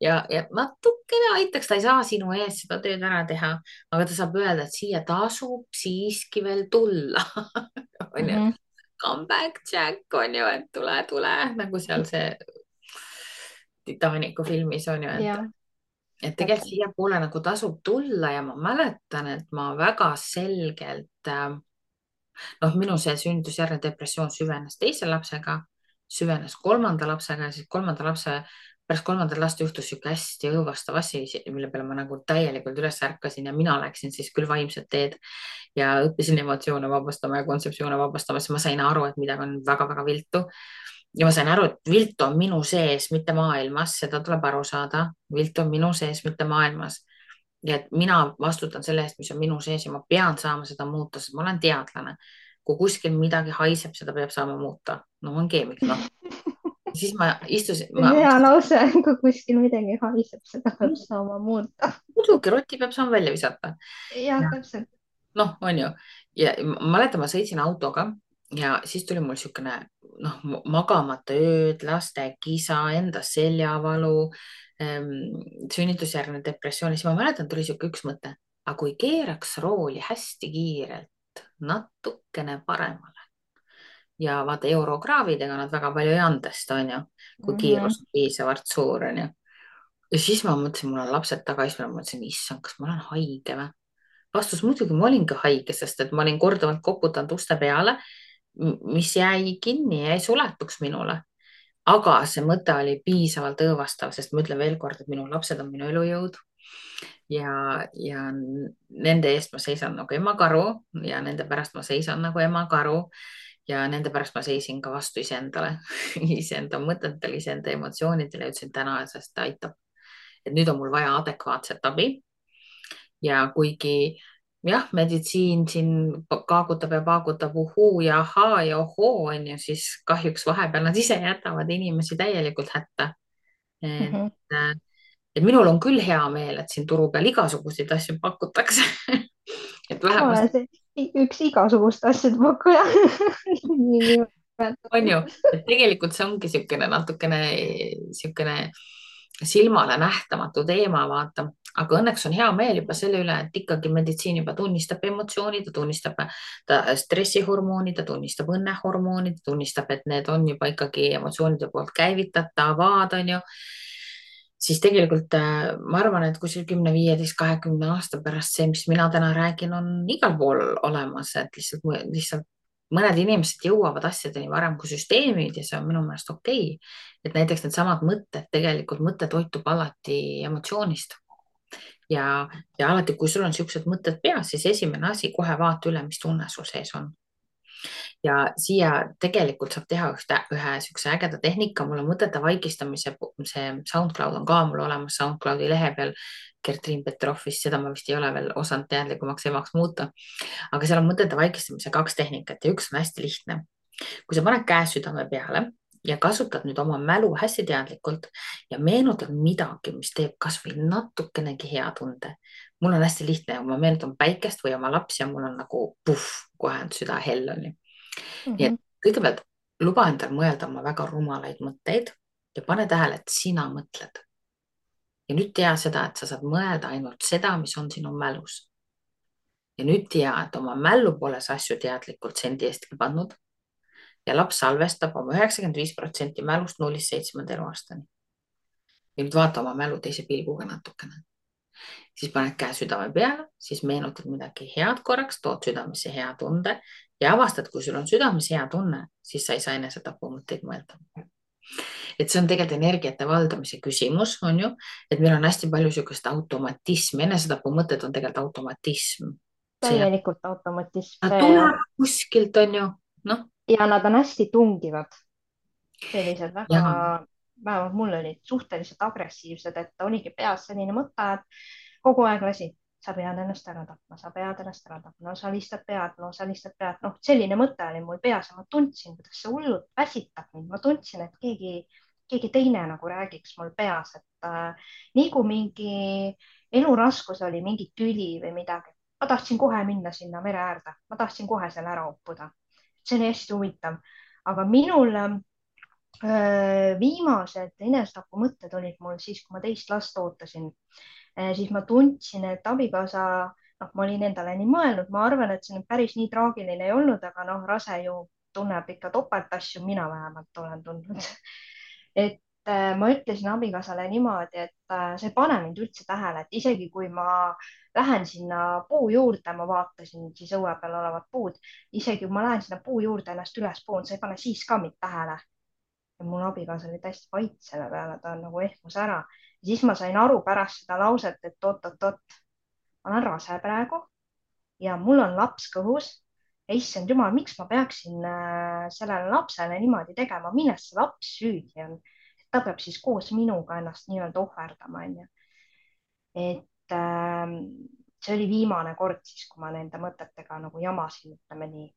Ja natukene aitaks, ta ei saa sinu ees seda tööd ära teha, aga ta saab öelda, et siia tasub siiski veel tulla. On ju, come back Jack, on ju, et tule, nagu seal see Titanicu filmis on ju, et tegelikult siiapoole nagu tasub tulla ja ma mäletan, et ma väga selgelt, minu see sünnitusjärgne depressioon süvenes teise lapsega, süvenes kolmanda lapsega ja siis pärast kolmandat last juhtus sihuke hästi õõvastav asi, mille peale ma nagu täielikult üles ärkasin ja mina läksin siis küll vaimset teed ja õppisin emotsioone vabastama ja kontseptsioone vabastama, siis ma sain aru, et midagi on väga-väga viltu. Ja ma sain aru, et vilt on minu sees, mitte maailmas, seda tuleb aru saada. Vilt on minu sees, mitte maailmas. Ja et mina vastutan selle eest, mis on minu sees ja ma pean saama seda muuta, sest ma olen teadlane. Kui kuskil midagi haiseb, seda peab saama muuta. No ma olen keemik, noh. Siis ma istusin. Hea lause, kui kuskil midagi haiseb, seda peab saama muuta. Muidugi, roti peab saama välja visata. Jah, täpselt. noh, on ju. Ja ma mäletan, ma sõitsin autoga ja siis tuli mul niisugune noh, magamata ööd, laste kisa, enda seljavalu, sünnitusjärgne depressioon. Siis ma mäletan, tuli niisugune üks mõte, aga kui keeraks rooli hästi kiirelt natukene paremale ja vaata eurokraavidega nad väga palju ei andesta, on ju, kui Mhm. kiirus on piisavalt suur, on ju. Ja siis ma mõtlesin, mul on lapsed taga, siis ma mõtlesin, issand, kas ma olen haige või? Vastus muidugi, ma olingi haige, sest et ma olin korduvalt koputanud uste peale, mis jäi kinni ja ei suletuks minule. aga see mõte oli piisavalt õõvastav, sest ma ütlen veel kord, et minu lapsed on minu elujõud ja nende eest ma seisan nagu emakaru ja nende pärast ma seisan nagu emakaru ja nende pärast ma seisin ka vastu iseendale, iseenda mõtetele, iseenda emotsioonidele ja ütlesin täna, sest ta aitab. et nüüd on mul vaja adekvaatset abi ja kuigi jah, meditsiin siin kaagutab ja paagutab uhuu ja ahaa ja ohoo, on ju, siis kahjuks vahepeal nad ise jätavad inimesi täielikult hätta. et, Mhm. et minul on küll hea meel, et siin turu peal igasuguseid asju pakutakse. et ma vähemalt olen see üks igasuguste asjade pakkuja on ju, niinimetatud. et tegelikult see ongi niisugune natukene niisugune silmale nähtamatu teema, vaata, aga õnneks on hea meel juba selle üle, et ikkagi meditsiin juba tunnistab emotsiooni, ta tunnistab stressihormooni, ta tunnistab õnnehormooni, ta tunnistab, et need on juba ikkagi emotsioonide poolt käivitatavad, on ju. siis tegelikult ma arvan, et kuskil 10, 15, 20 aasta pärast see, mis mina täna räägin, on igal pool olemas, et lihtsalt mõned inimesed jõuavad asjadeni varem kui süsteemid ja see on minu meelest okei. et näiteks needsamad mõtted, tegelikult mõte toitub alati emotsioonist ja alati, kui sul on niisugused mõtted peas, siis esimene asi, kohe vaata üle, mis tunne sul sees on. ja siia tegelikult saab teha ühe niisuguse ägeda tehnika, mul on mõtete vaigistamise, see SoundCloud on ka mul olemas SoundCloudi lehe peal. Gertriin Petrovist, seda ma vist ei ole veel osanud teadlikumaks emaks muuta, aga seal on mõtete vaigistamise 2 tehnikat ja üks on hästi lihtne. kui sa paned käe südame peale ja kasutad nüüd oma mälu hästi teadlikult ja meenutad midagi, mis teeb kasvõi natukenegi hea tunde. mul on hästi lihtne, ma meenutan päikest või oma lapsi ja mul on nagu puhh, kohe on süda hell on ju. nii et Mhm. kõigepealt luba endal mõelda oma väga rumalaid mõtteid ja pane tähele, et sina mõtled. ja nüüd tea seda, et sa saad mõelda ainult seda, mis on sinu mälus. ja nüüd tea, et oma mällu pole sa asju teadlikult sendi eestki pannud ja laps salvestab oma 95% mälust 0-7 eluaastani. ja nüüd vaata oma mälu teise pilguga natukene. siis paned käe südame peale, siis meenutad midagi head korraks, tood südamesse hea tunde ja avastad, kui sul on südames hea tunne, siis sa ei saa enesetapumõtteid mõelda. et see on tegelikult energiate valdamise küsimus, on ju, et meil on hästi palju niisugust automatismi, enesetapumõtted on tegelikult automatism. see, täielikult automatism, ta see tuleb kuskilt, on ju, noh, ja nad on hästi tungivad, sellised väga, ja vähemalt mul olid suhteliselt agressiivsed, et oligi peas selline mõte, et kogu aeg lasi, sa pead ennast ära tapma, sa pead ennast ära tapma, no sa lihtsalt pead, no sa lihtsalt pead, noh, selline mõte oli mul peas ja ma tundsin, kuidas see hullult väsitab mind, ma tundsin, et keegi teine nagu räägiks mul peas, et nii kui mingi eluraskus oli, mingi tüli või midagi, ma tahtsin kohe minna sinna mere äärde, ma tahtsin kohe selle ära uppuda. see oli hästi huvitav, aga minul viimased enesetapumõtted olid mul siis, kui ma teist last ootasin. siis ma tundsin, et abikaasa, noh, ma olin endale nii mõelnud, ma arvan, et see nüüd päris nii traagiline ei olnud, aga noh, rase ju tunneb ikka topeltasju, mina vähemalt olen tundnud. et ma ütlesin abikaasale niimoodi, et sa ei pane mind üldse tähele, et isegi kui ma lähen sinna puu juurde, ma vaatasin siis õue peal olevat puud, isegi kui ma lähen sinna puu juurde ennast üles poon, sa ei pane siis ka mind tähele. Ja mul abikaasa oli täiesti vait selle peale, ta nagu ehmus ära. Ja siis ma sain aru pärast seda lauset, et oot-oot-oot, ma olen rase praegu ja mul on laps kõhus. ja issand jumal, miks ma peaksin sellele lapsele niimoodi tegema, milles see laps süüdi on? ta peab siis koos minuga ennast nii-öelda ohverdama, onju. et see oli viimane kord siis, kui ma nende mõtetega nagu jamasin, ütleme nii.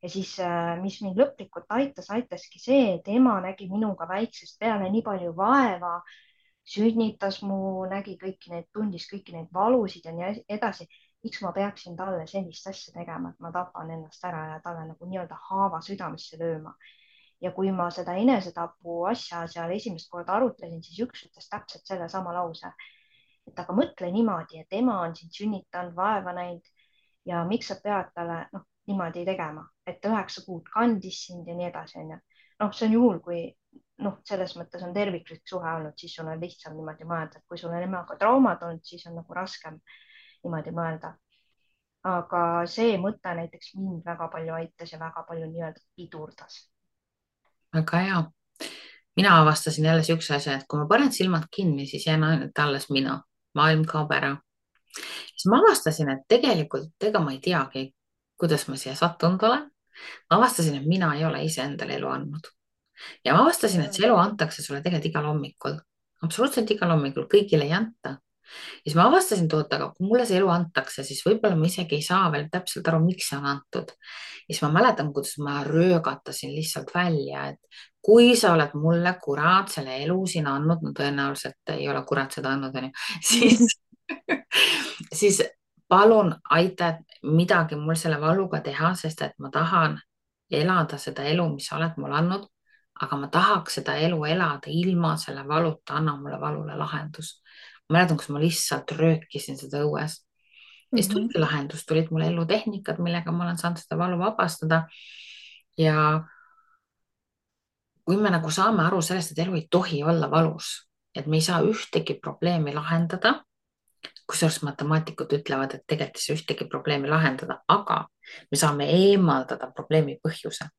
ja siis, mis mind lõplikult aitas, aitaski see, et ema nägi minuga väiksest peale nii palju vaeva, sünnitas mu, nägi kõiki neid, tundis kõiki neid valusid ja nii edasi. miks ma peaksin talle sellist asja tegema, et ma tapan ennast ära ja talle nagu nii-öelda haava südamesse lööma. Ja kui ma seda enesetapu asja seal esimest korda arutlesin, siis üks ütles täpselt sellesama lause, et aga mõtle niimoodi, et ema on sind sünnitanud, vaeva näinud ja miks sa pead talle niimoodi tegema, et 9 kuud kandis sind ja nii edasi, onju. See on juhul, kui selles mõttes on terviklik suhe olnud, siis sul on lihtsam niimoodi mõelda, et kui sul on emaga traumad olnud, siis on nagu raskem niimoodi mõelda. Aga see mõte näiteks mind väga palju aitas ja väga palju nii-öelda pidurdas. Väga hea. Mina avastasin jälle siukse asja, et kui ma panen silmad kinni, siis jään ainult alles mina. Maailm kaob ära. Siis ma avastasin, et tegelikult ega ma ei teagi, kuidas ma siia sattunud olen. Ma avastasin, et mina ei ole iseendale elu andnud. Ja ma avastasin, et see elu antakse sulle tegelikult igal hommikul. Absoluutselt igal hommikul, kõigile ei anta. Ja siis ma avastasin, aga kui mulle see elu antakse, siis võib-olla ma isegi ei saa veel täpselt aru, miks see on antud. Ja siis ma mäletan, kuidas ma röögatasin lihtsalt välja, et kui sa oled mulle kurat selle elu siin andnud, no tõenäoliselt ei ole kurat seda andnud, siis palun aita midagi mul selle valuga teha, sest et ma tahan elada seda elu, mis sa oled mulle andnud, aga ma tahaks seda elu elada ilma selle valuta, anna mulle valule lahendus. Ma mäletan, kus ma lihtsalt röökisin seda õues. Ja siis tuligi lahendus, tulid mulle elutehnikad, millega ma olen saanud seda valu vabastada. Ja kui me nagu saame aru sellest, et elu ei tohi olla valus, et me ei saa ühtegi probleemi lahendada, kusjuures matemaatikud ütlevad, et tegelikult ei saa ühtegi probleemi lahendada, aga me saame eemaldada probleemi põhjuse.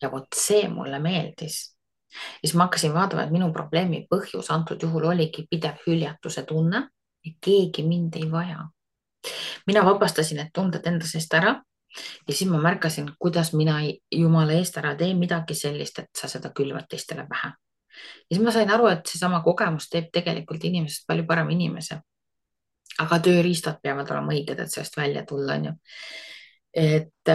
Ja vot see mulle meeldis. Ja siis ma hakkasin vaatama, et minu probleemi põhjus antud juhul oligi pidev hüljatuse tunne, et keegi mind ei vaja. Mina vabastasin need tunded enda seest ära ja siis ma märkasin, kuidas mina jumala eest ära teen midagi sellist, et sa seda külvad teistele pähe. Ja siis ma sain aru, et seesama kogemus teeb tegelikult inimesest palju parem inimese. Aga tööriistad peavad olema õiged, et sellest välja tulla, on ju. Et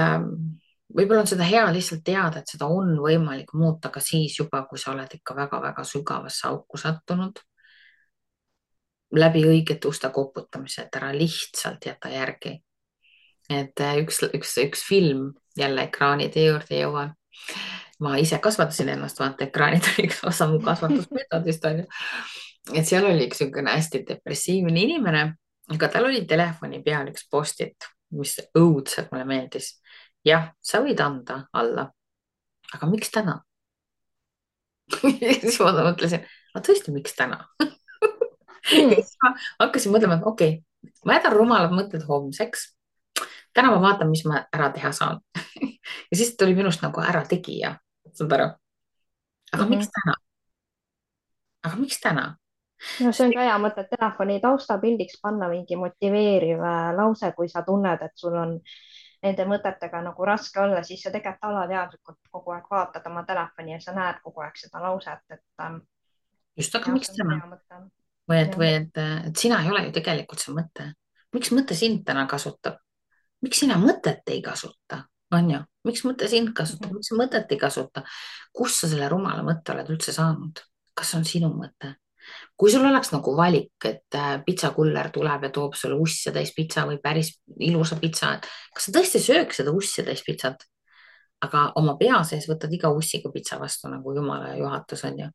võib-olla on seda hea lihtsalt teada, et seda on võimalik muuta ka siis juba, kui sa oled ikka väga-väga sügavasse auku sattunud. Läbi õigete uste koputamise, et ära lihtsalt jäta järgi. Et üks film jälle ekraanide juurde jõuan. Ma ise kasvatasin ennast, vaata ekraanid oli üks osa mu kasvatusmeetodist, on ju. Et seal oli üks hästi depressiivne inimene, aga tal oli telefoni peal üks post-it, mis õudselt mulle meeldis. Jah, sa võid anda alla, aga miks täna? Siis ma mõtlesin, tõesti, miks täna? Ma hakkasin mõtlema, et okei, ma jätan rumalad mõtted homseks. Täna ma vaatan, mis ma ära teha saan. Ja siis tuli minust nagu ära tegija, saad aru? Aga miks täna? Aga miks täna? No see on ka hea mõte, telefoni taustapildiks panna mingi motiveeriv lause, kui sa tunned, et sul on nende mõtetega nagu raske olla, siis sa tegelikult alateadlikult kogu aeg vaatad oma telefoni ja sa näed kogu aeg seda lauset, et just, aga miks täna? Või et sina ei ole ju tegelikult see mõte. Miks mõte sind täna kasutab? Miks sina mõtet ei kasuta? On ju? Miks mõte sind kasutab? Miks sa mõtet ei kasuta? Kus sa selle rumala mõtte oled üldse saanud? Kas on sinu mõte? Kui sul oleks nagu valik, et pitsakuller tuleb ja toob sulle ussia täis pitsa või päris ilusa pitsa, kas sa tõesti sööks seda ussia täis pitsat? Aga oma pea sees võtad iga ussiga pitsa vastu nagu jumala juhatus, on ju.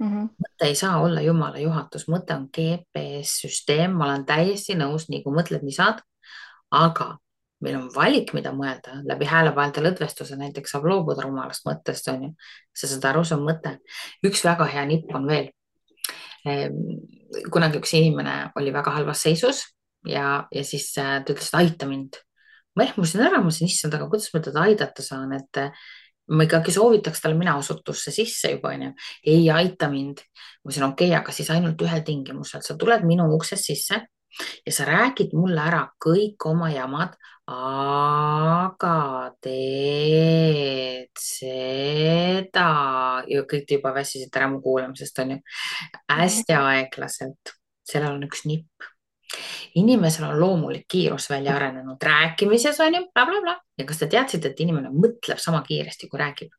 Mõte ei saa olla jumala juhatus, mõte on GPS-süsteem, ma olen täiesti nõus, nii kui mõtled, nii saad, aga meil on valik, mida mõelda, läbi häälepaelte lõdvestuse näiteks saab loobuda rumalast mõttest, on ju. Sa saad aru, see on mõte. Üks väga hea nipp on veel. Kunagi üks inimene oli väga halvas seisus ja siis ta ütles, et aita mind. Ma ehmusin ära, ma ütlesin, issand, aga kuidas ma teda aidata saan, et ma ikkagi soovitaks talle mina osutusse sisse juba, on ju. Ei aita mind. Ma ütlesin, okei, aga siis ainult ühel tingimusel. Sa tuled minu uksest sisse ja sa räägid mulle ära kõik oma jamad, aga teed seda ja kõik te juba väsisid ära mu kuulamisest, on ju. Hästi aeglaselt. Sellel on üks nipp. Inimesel on loomulik kiirus välja arenenud rääkimises, on ju, bla, bla, bla. Ja kas te teadsite, et inimene mõtleb sama kiiresti, kui räägib?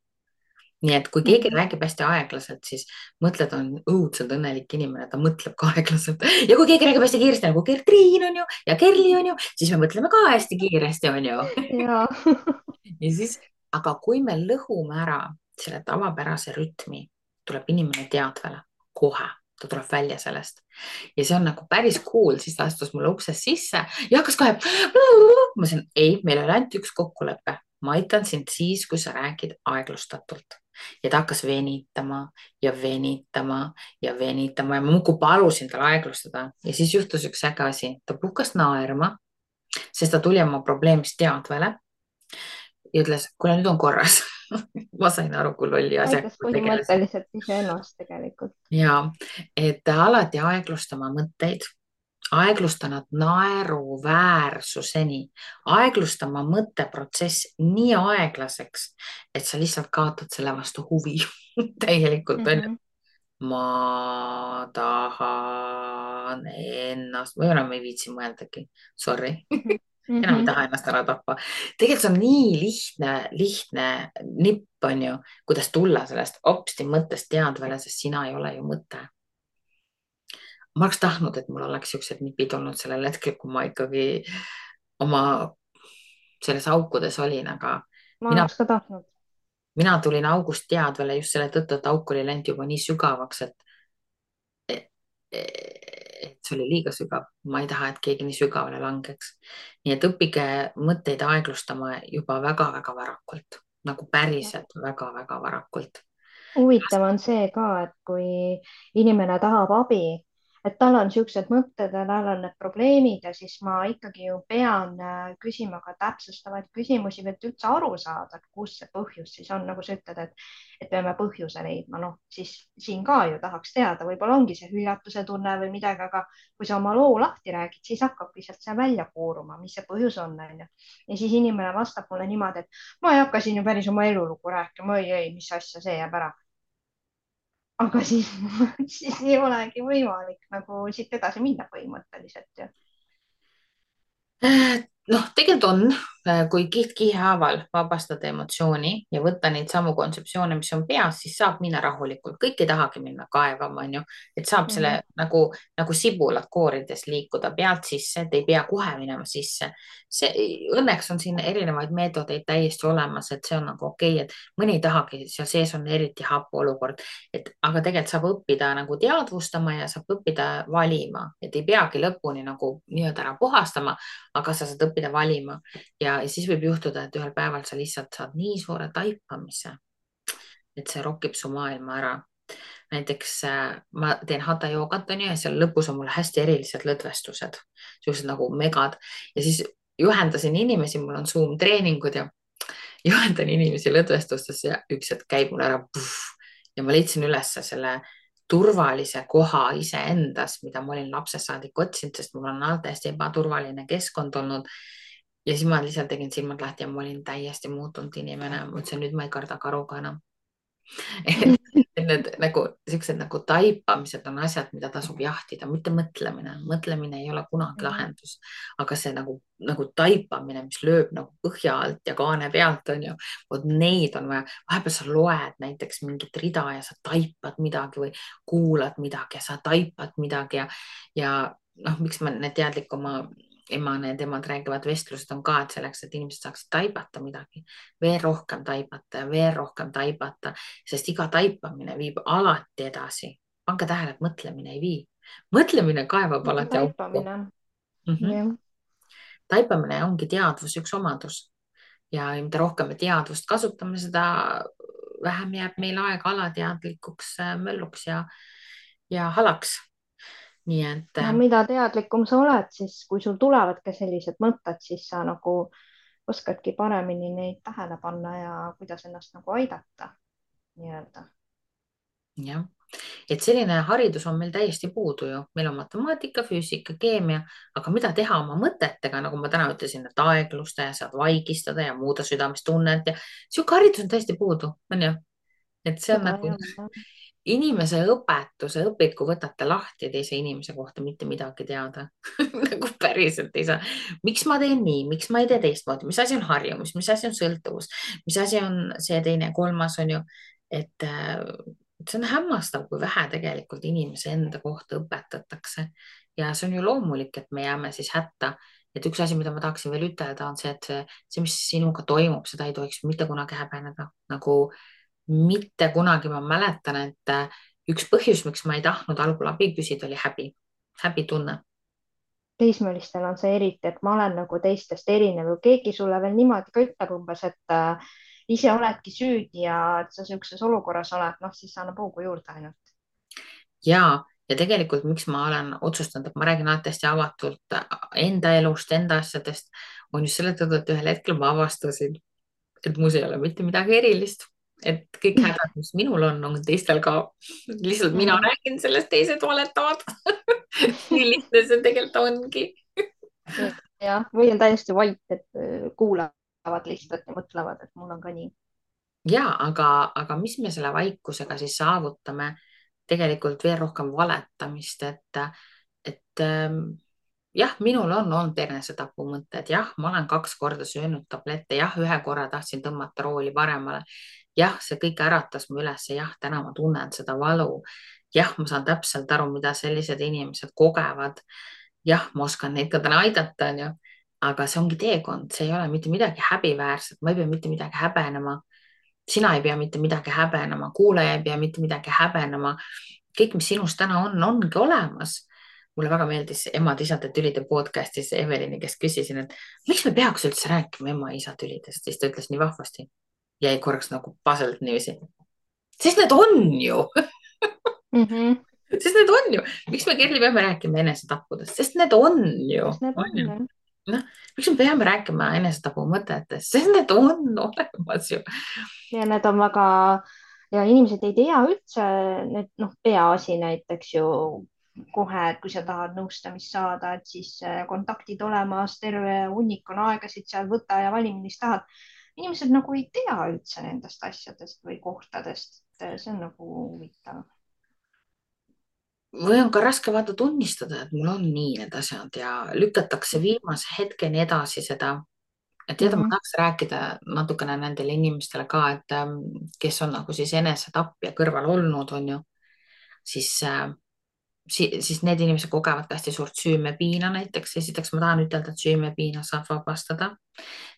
nii et kui keegi Mhm. räägib hästi aeglaselt, siis mõtled, on õudselt õnnelik inimene, ta mõtleb ka aeglaselt. Ja kui keegi räägib hästi kiiresti, nagu Gertriin on ju ja Kerli on ju, siis me mõtleme ka hästi kiiresti, on ju. ja Ja siis, aga kui me lõhume ära selle tavapärase rütmi, tuleb inimene teadvale kohe, ta tuleb välja sellest. Ja see on nagu päris cool, siis ta astus mulle uksest sisse ja hakkas kohe. Ma ütlesin, ei, meil oli ainult üks kokkulepe. Ma aitan sind siis, kui sa räägid aeglustatult. Ja ta hakkas venitama ja venitama ja venitama ja ma muudkui palusin tal aeglustada. Ja siis juhtus üks äge asi. Ta puhkas naerma, sest ta tuli oma probleemist teadvale ja ütles, kuule, nüüd on korras. Ma sain aru, kui lolli asjaga aitas ma tegelesin. põhimõtteliselt iseennast tegelikult. Ja et alati aeglustama mõtteid, aeglusta nad naeruväärsuseni, aeglustama mõtteprotsess nii aeglaseks, et sa lihtsalt kaotad selle vastu huvi täielikult on ju. Mhm. Ma tahan ennast, või enam ei viitsi mõeldagi, sorry. Mhm. Enam ei Mhm. taha ennast ära tappa. Tegelikult see on nii lihtne nipp on ju, kuidas tulla sellest hopsti mõttest teadvale, sest sina ei ole ju mõte. Ma oleks tahtnud, et mul oleks siuksed nipid olnud sellel hetkel, kui ma ikkagi oma selles aukudes olin, aga ma mina, oleks ka tahtnud. mina tulin august teadvale just selle tõttu, et auk oli läinud juba nii sügavaks, et see oli liiga sügav. Ma ei taha, et keegi nii sügavale langeks. Nii et õppige mõtteid aeglustama juba väga-väga varakult, nagu päriselt väga-väga varakult. huvitav on see ka, et kui inimene tahab abi, et tal on niisugused mõtted ja tal on need probleemid ja siis ma ikkagi ju pean küsima ka täpsustavaid küsimusi, et üldse aru saada, et kus see põhjus siis on, nagu sa ütled, et peame põhjuse leidma, noh siis siin ka ju tahaks teada, võib-olla ongi see hüljatuse tunne või midagi, aga kui sa oma loo lahti räägid, siis hakkabki sealt see välja kooruma, mis see põhjus on, onju. ja siis inimene vastab mulle niimoodi, et ma ei hakka siin ju päris oma elulugu rääkima, ei, mis asja, see jääb ära, aga siis, siis ei olegi võimalik nagu siit edasi minna põhimõtteliselt ju. Noh, tegelikult on, kui kiht kihi haaval vabastada emotsiooni ja võtta neid samu kontseptsioone, mis on peas, siis saab minna rahulikult. Kõik ei tahagi minna kaevama, on ju, et saab selle Mhm. nagu sibulad koorides liikuda pealt sisse, et ei pea kohe minema sisse. Õnneks on siin erinevaid meetodeid täiesti olemas, et see on nagu okei, et mõni ei tahagi, seal sees on eriti hapu olukord, aga tegelikult saab õppida nagu teadvustama ja saab õppida valima, et ei peagi lõpuni nagu nii-öelda ära puhastama, aga sa saad õppida valima ja siis võib juhtuda, et ühel päeval sa lihtsalt saad nii suure taipamise, et see rokib su maailma ära. Näiteks ma teen hatha joogat onju ja seal lõpus on mul hästi erilised lõdvestused, siuksed nagu megad ja siis juhendasin inimesi, mul on Zoom treeningud ja juhendan inimesi lõdvestustes ja üks hetk käib mul ära puh, ja ma leidsin ülesse selle turvalise koha iseendas, mida ma olin lapsest saadik otsinud, sest mul on alati hästi ebaturvaline keskkond olnud. Ja siis ma lihtsalt tegin silmad lahti ja ma olin täiesti muutunud inimene. Ma ütlesin, nüüd ma ei karda karuga enam. Et need nagu siuksed nagu taipamised on asjad, mida tasub jahtida, mitte mõtlemine. Mõtlemine ei ole kunagi Mhm. lahendus, aga see nagu taipamine, mis lööb nagu põhja alt ja kaane pealt on ju, vot neid on vaja. Vahepeal sa loed näiteks mingit rida ja sa taipad midagi või kuulad midagi ja sa taipad midagi ja noh, miks ma need teadlikuma ema, need emad räägivad vestlused on ka, et selleks, et inimesed saaksid taibata midagi, veel rohkem taibata ja veel rohkem taibata, sest iga taipamine viib alati edasi. Pange tähele, et mõtlemine ei vii. Mõtlemine kaevab nagu alati auku. taipamine. jah. Taipamine ongi teadvuse üks omadus ja mida rohkem me teadvust kasutame, seda vähem jääb meil aega alateadlikuks mölluks ja halaks. Nii et ja mida teadlikum sa oled, siis kui sul tulevadki sellised mõtted, siis sa nagu oskadki paremini neid tähele panna ja kuidas ennast nagu aidata nii-öelda. jah, et selline haridus on meil täiesti puudu ju, meil on matemaatika, füüsika, keemia, aga mida teha oma mõtetega, nagu ma täna ütlesin, et aeglusta ja saad vaigistada ja muuda südamestunnet ja sihuke haridus on täiesti puudu, on ju. Et see on seda nagu ei ole. inimese õpetuse õpiku võtate lahti teise inimese kohta mitte midagi teada nagu päriselt ei saa. Miks ma teen nii, miks ma ei tee teistmoodi, mis asi on harjumus, mis asi on sõltuvus, mis asi on see teine, kolmas on ju. et see on hämmastav, kui vähe tegelikult inimese enda kohta õpetatakse ja see on ju loomulik, et me jääme siis hätta. Et üks asi, mida ma tahaksin veel ütelda, on see, et mis sinuga toimub, seda ei tohiks mitte kunagi häbeneda. Nagu mitte kunagi. Ma mäletan, et üks põhjus, miks ma ei tahtnud algul abi küsida, oli häbi, häbitunne. teismelistel on see eriti, et ma olen nagu teistest erinev või keegi sulle veel niimoodi ka ütleb umbes, et ise oledki süüdi ja et sa niisuguses olukorras oled, noh, siis annab hoogu juurde ainult. Ja tegelikult, miks ma olen otsustanud, et ma räägin alati hästi avatult enda elust, enda asjadest, on just selle tõttu, et ühel hetkel ma avastasin, et mus ei ole mitte midagi erilist, et kõik hädad, mis minul on teistel ka. Lihtsalt mina Mhm. räägin sellest, teised valetavad. nii lihtne see tegelikult ongi. jah, või on täiesti vait, et kuulavad lihtsalt ja mõtlevad, et mul on ka nii. Ja, aga mis me selle vaikusega siis saavutame? Tegelikult veel rohkem valetamist, et jah, minul on olnud enesetapumõtted, jah, ma olen 2 korda söönud tablette, jah, 1 korra tahtsin tõmmata rooli paremale. Jah, see kõik äratas mu üles, jah, täna ma tunnen seda valu. Jah, ma saan täpselt aru, mida sellised inimesed kogevad. Jah, ma oskan neid ka täna aidata, onju. Aga see ongi teekond, see ei ole mitte midagi häbiväärset, ma ei pea mitte midagi häbenema. Sina ei pea mitte midagi häbenema, kuulaja ei pea mitte midagi häbenema. Kõik, mis sinus täna on, ongi olemas. Mulle väga meeldis emad-isade tülide podcastis Evelini, kes küsisin, et miks me peaks üldse rääkima ema-isa tülidest, siis ta ütles nii vahvasti. Jäi korraks nagu puzzled niiviisi. Sest need on ju, Mhm. sest need on ju. Miks me, Kerli, peame rääkima enesetappudest, sest need on ju, sest need on on ju. jah. Noh, miks me peame rääkima enesetapu mõtetest, sest need on olemas ju. ja need on väga ja inimesed ei tea üldse, need noh, peaasi näiteks ju kohe, et kui sa tahad nõustamist saada, et siis kontaktid olemas, terve hunnik on aegasid seal, võta ja vali, millist tahad. inimesed nagu ei tea üldse nendest asjadest või kohtadest. see on nagu huvitav. Või on ka raske vaata tunnistada, et mul on nii need asjad ja lükatakse viimase hetkeni edasi seda. Et tead, ma Mhm. tahaks rääkida natukene nendele inimestele ka, et kes on nagu siis enesetapja kõrval olnud, on ju, siis siis need inimesed kogevad ka hästi suurt süümepiina näiteks. Esiteks ma tahan ütelda, et süümepiina saab vabastada.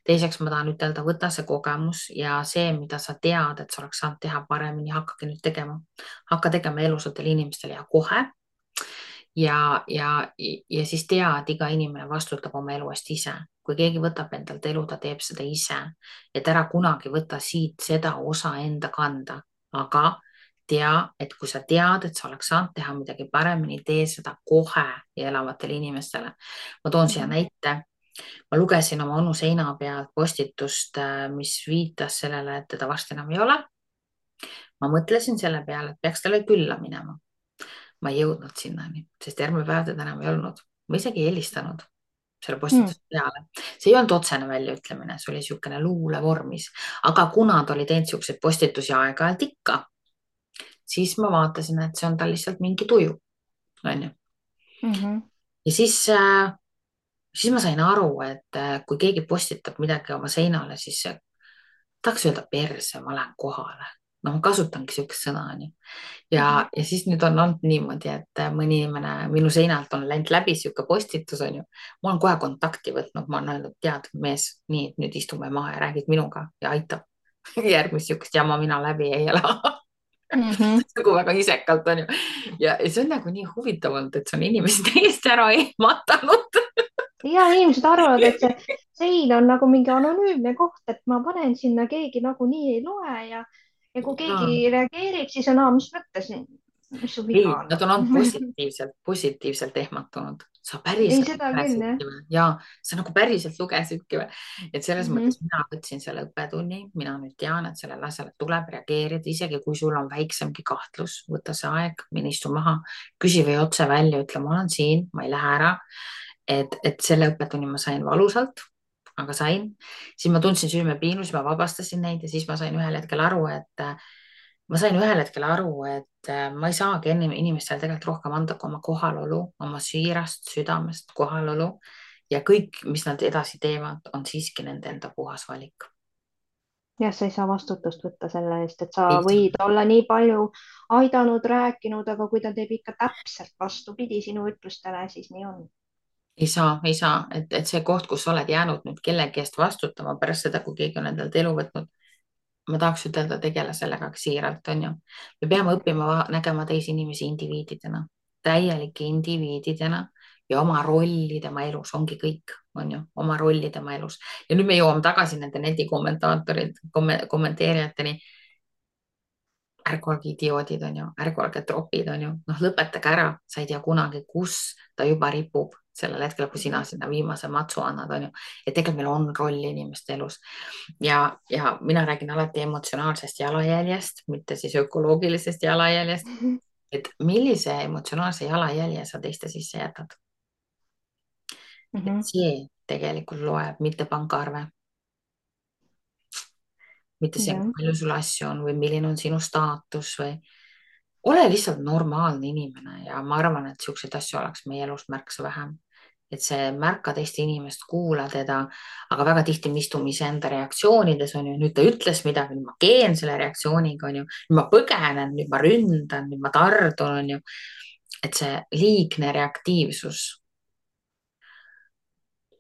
Teiseks ma tahan ütelda, võta see kogemus ja see, mida sa tead, et sa oleks saanud teha paremini, hakkagi nüüd tegema. Hakka tegema elusatele inimestele ja kohe. Ja siis tea, et iga inimene vastutab oma elu eest ise. Kui keegi võtab endalt elu, ta teeb seda ise. Et ära kunagi võta siit seda osa enda kanda. Aga tea, et kui sa tead, et sa oleks saanud teha midagi paremini, tee seda kohe ja elavatele inimestele. Ma toon siia Mhm. näite. Ma lugesin oma onu seina pealt postitust, mis viitas sellele, et teda varsti enam ei ole. Ma mõtlesin selle peale, et peaks talle külla minema. Ma ei jõudnud sinnani, sest järgmine päev teda enam ei olnud. Ma isegi ei helistanud selle Mhm. postituse peale. See ei olnud otsene väljaütlemine, see oli niisugune luulevormis. Aga kuna ta oli teinud niisuguseid postitusi aeg-ajalt ikka, siis ma vaatasin, et see on tal lihtsalt mingi tuju. On ju? Mhm. Ja siis ma sain aru, et kui keegi postitab midagi oma seinale, siis tahaks öelda perse, ma lähen kohale. No ma kasutangi niisugust sõna, onju. Ja siis nüüd on olnud niimoodi, et mõni inimene minu seinalt on läinud läbi niisugune postitus, onju. Ma olen kohe kontakti võtnud, ma olen öelnud, tead, mees, nii, et nüüd istume maha ja räägid minuga ja aitab. Järgmist niisugust jama mina läbi ei ela. Mhm. nagu väga isekalt, onju. Ja see on nagu nii huvitav olnud, et see on inimesi täiesti ära ehmatanud. ja inimesed arvavad, et see sein on nagu mingi anonüümne koht, et ma panen sinna, keegi nagunii ei loe ja kui keegi reageerib, siis on, mis mõttes, mis su viga ei, on nad on olnud nagu. positiivselt ehmatunud. Sa ei, päriselt seda küll jah. lugesidki või? Ja sa nagu päriselt lugesidki või? Et selles Mhm. mõttes mina võtsin selle õppetunni, mina nüüd tean, et sellele asjale tuleb reageerida, isegi kui sul on väiksemgi kahtlus, võta see aeg, mine istu maha, küsi või otse välja, ütle, ma olen siin, ma ei lähe ära. Et selle õppetunni ma sain valusalt, aga sain. Siis ma tundsin süümepiinu, siis ma vabastasin neid ja siis ma sain ühel hetkel aru, et ma ei saagi enne inimestele tegelikult rohkem anda kui oma kohalolu, oma siirast südamest kohalolu ja kõik, mis nad edasi teevad, on siiski nende enda puhas valik. jah, sa ei saa vastutust võtta selle eest, et sa ei saa, võid olla nii palju aidanud, rääkinud, aga kui ta teeb ikka täpselt vastupidi sinu ütlustele, siis nii on. ei saa, et see koht, kus sa oled jäänud nüüd kellegi eest vastutama pärast seda, kui keegi on endalt elu võtnud, ma tahaks ütelda, tegele sellega ka siiralt, on ju. me peame õppima nägema teisi inimesi indiviididena, täielike indiviididena ja oma rolli tema elus ongi kõik, on ju, oma rolli tema elus. ja nüüd me jõuame tagasi nende kommenteerijateni. ärge olge idioodid, on ju, ärge olge tropid, on ju, noh, lõpetage ära, sa ei tea kunagi, kus ta juba ripub sellel hetkel, kui sina sinna viimase matsu annad, on ju. et tegelikult meil on roll inimeste elus ja mina räägin alati emotsionaalsest jalajäljest, mitte siis ökoloogilisest jalajäljest, et millise emotsionaalse jalajälje sa teiste sisse jätad. et see tegelikult loeb, mitte pangaarve, mitte see, kui jah, palju sul asju on või milline on sinu staatus või ole lihtsalt normaalne inimene ja ma arvan, et siukseid asju oleks meie elus märksa vähem. et see märka teist inimest, kuula teda, aga väga tihti me istume iseenda reaktsioonides, on ju, nüüd ta ütles midagi, nüüd ma keen selle reaktsiooniga, on ju, nüüd ma põgenen, nüüd ma ründan, nüüd ma tardun, on ju. et see liigne reaktiivsus,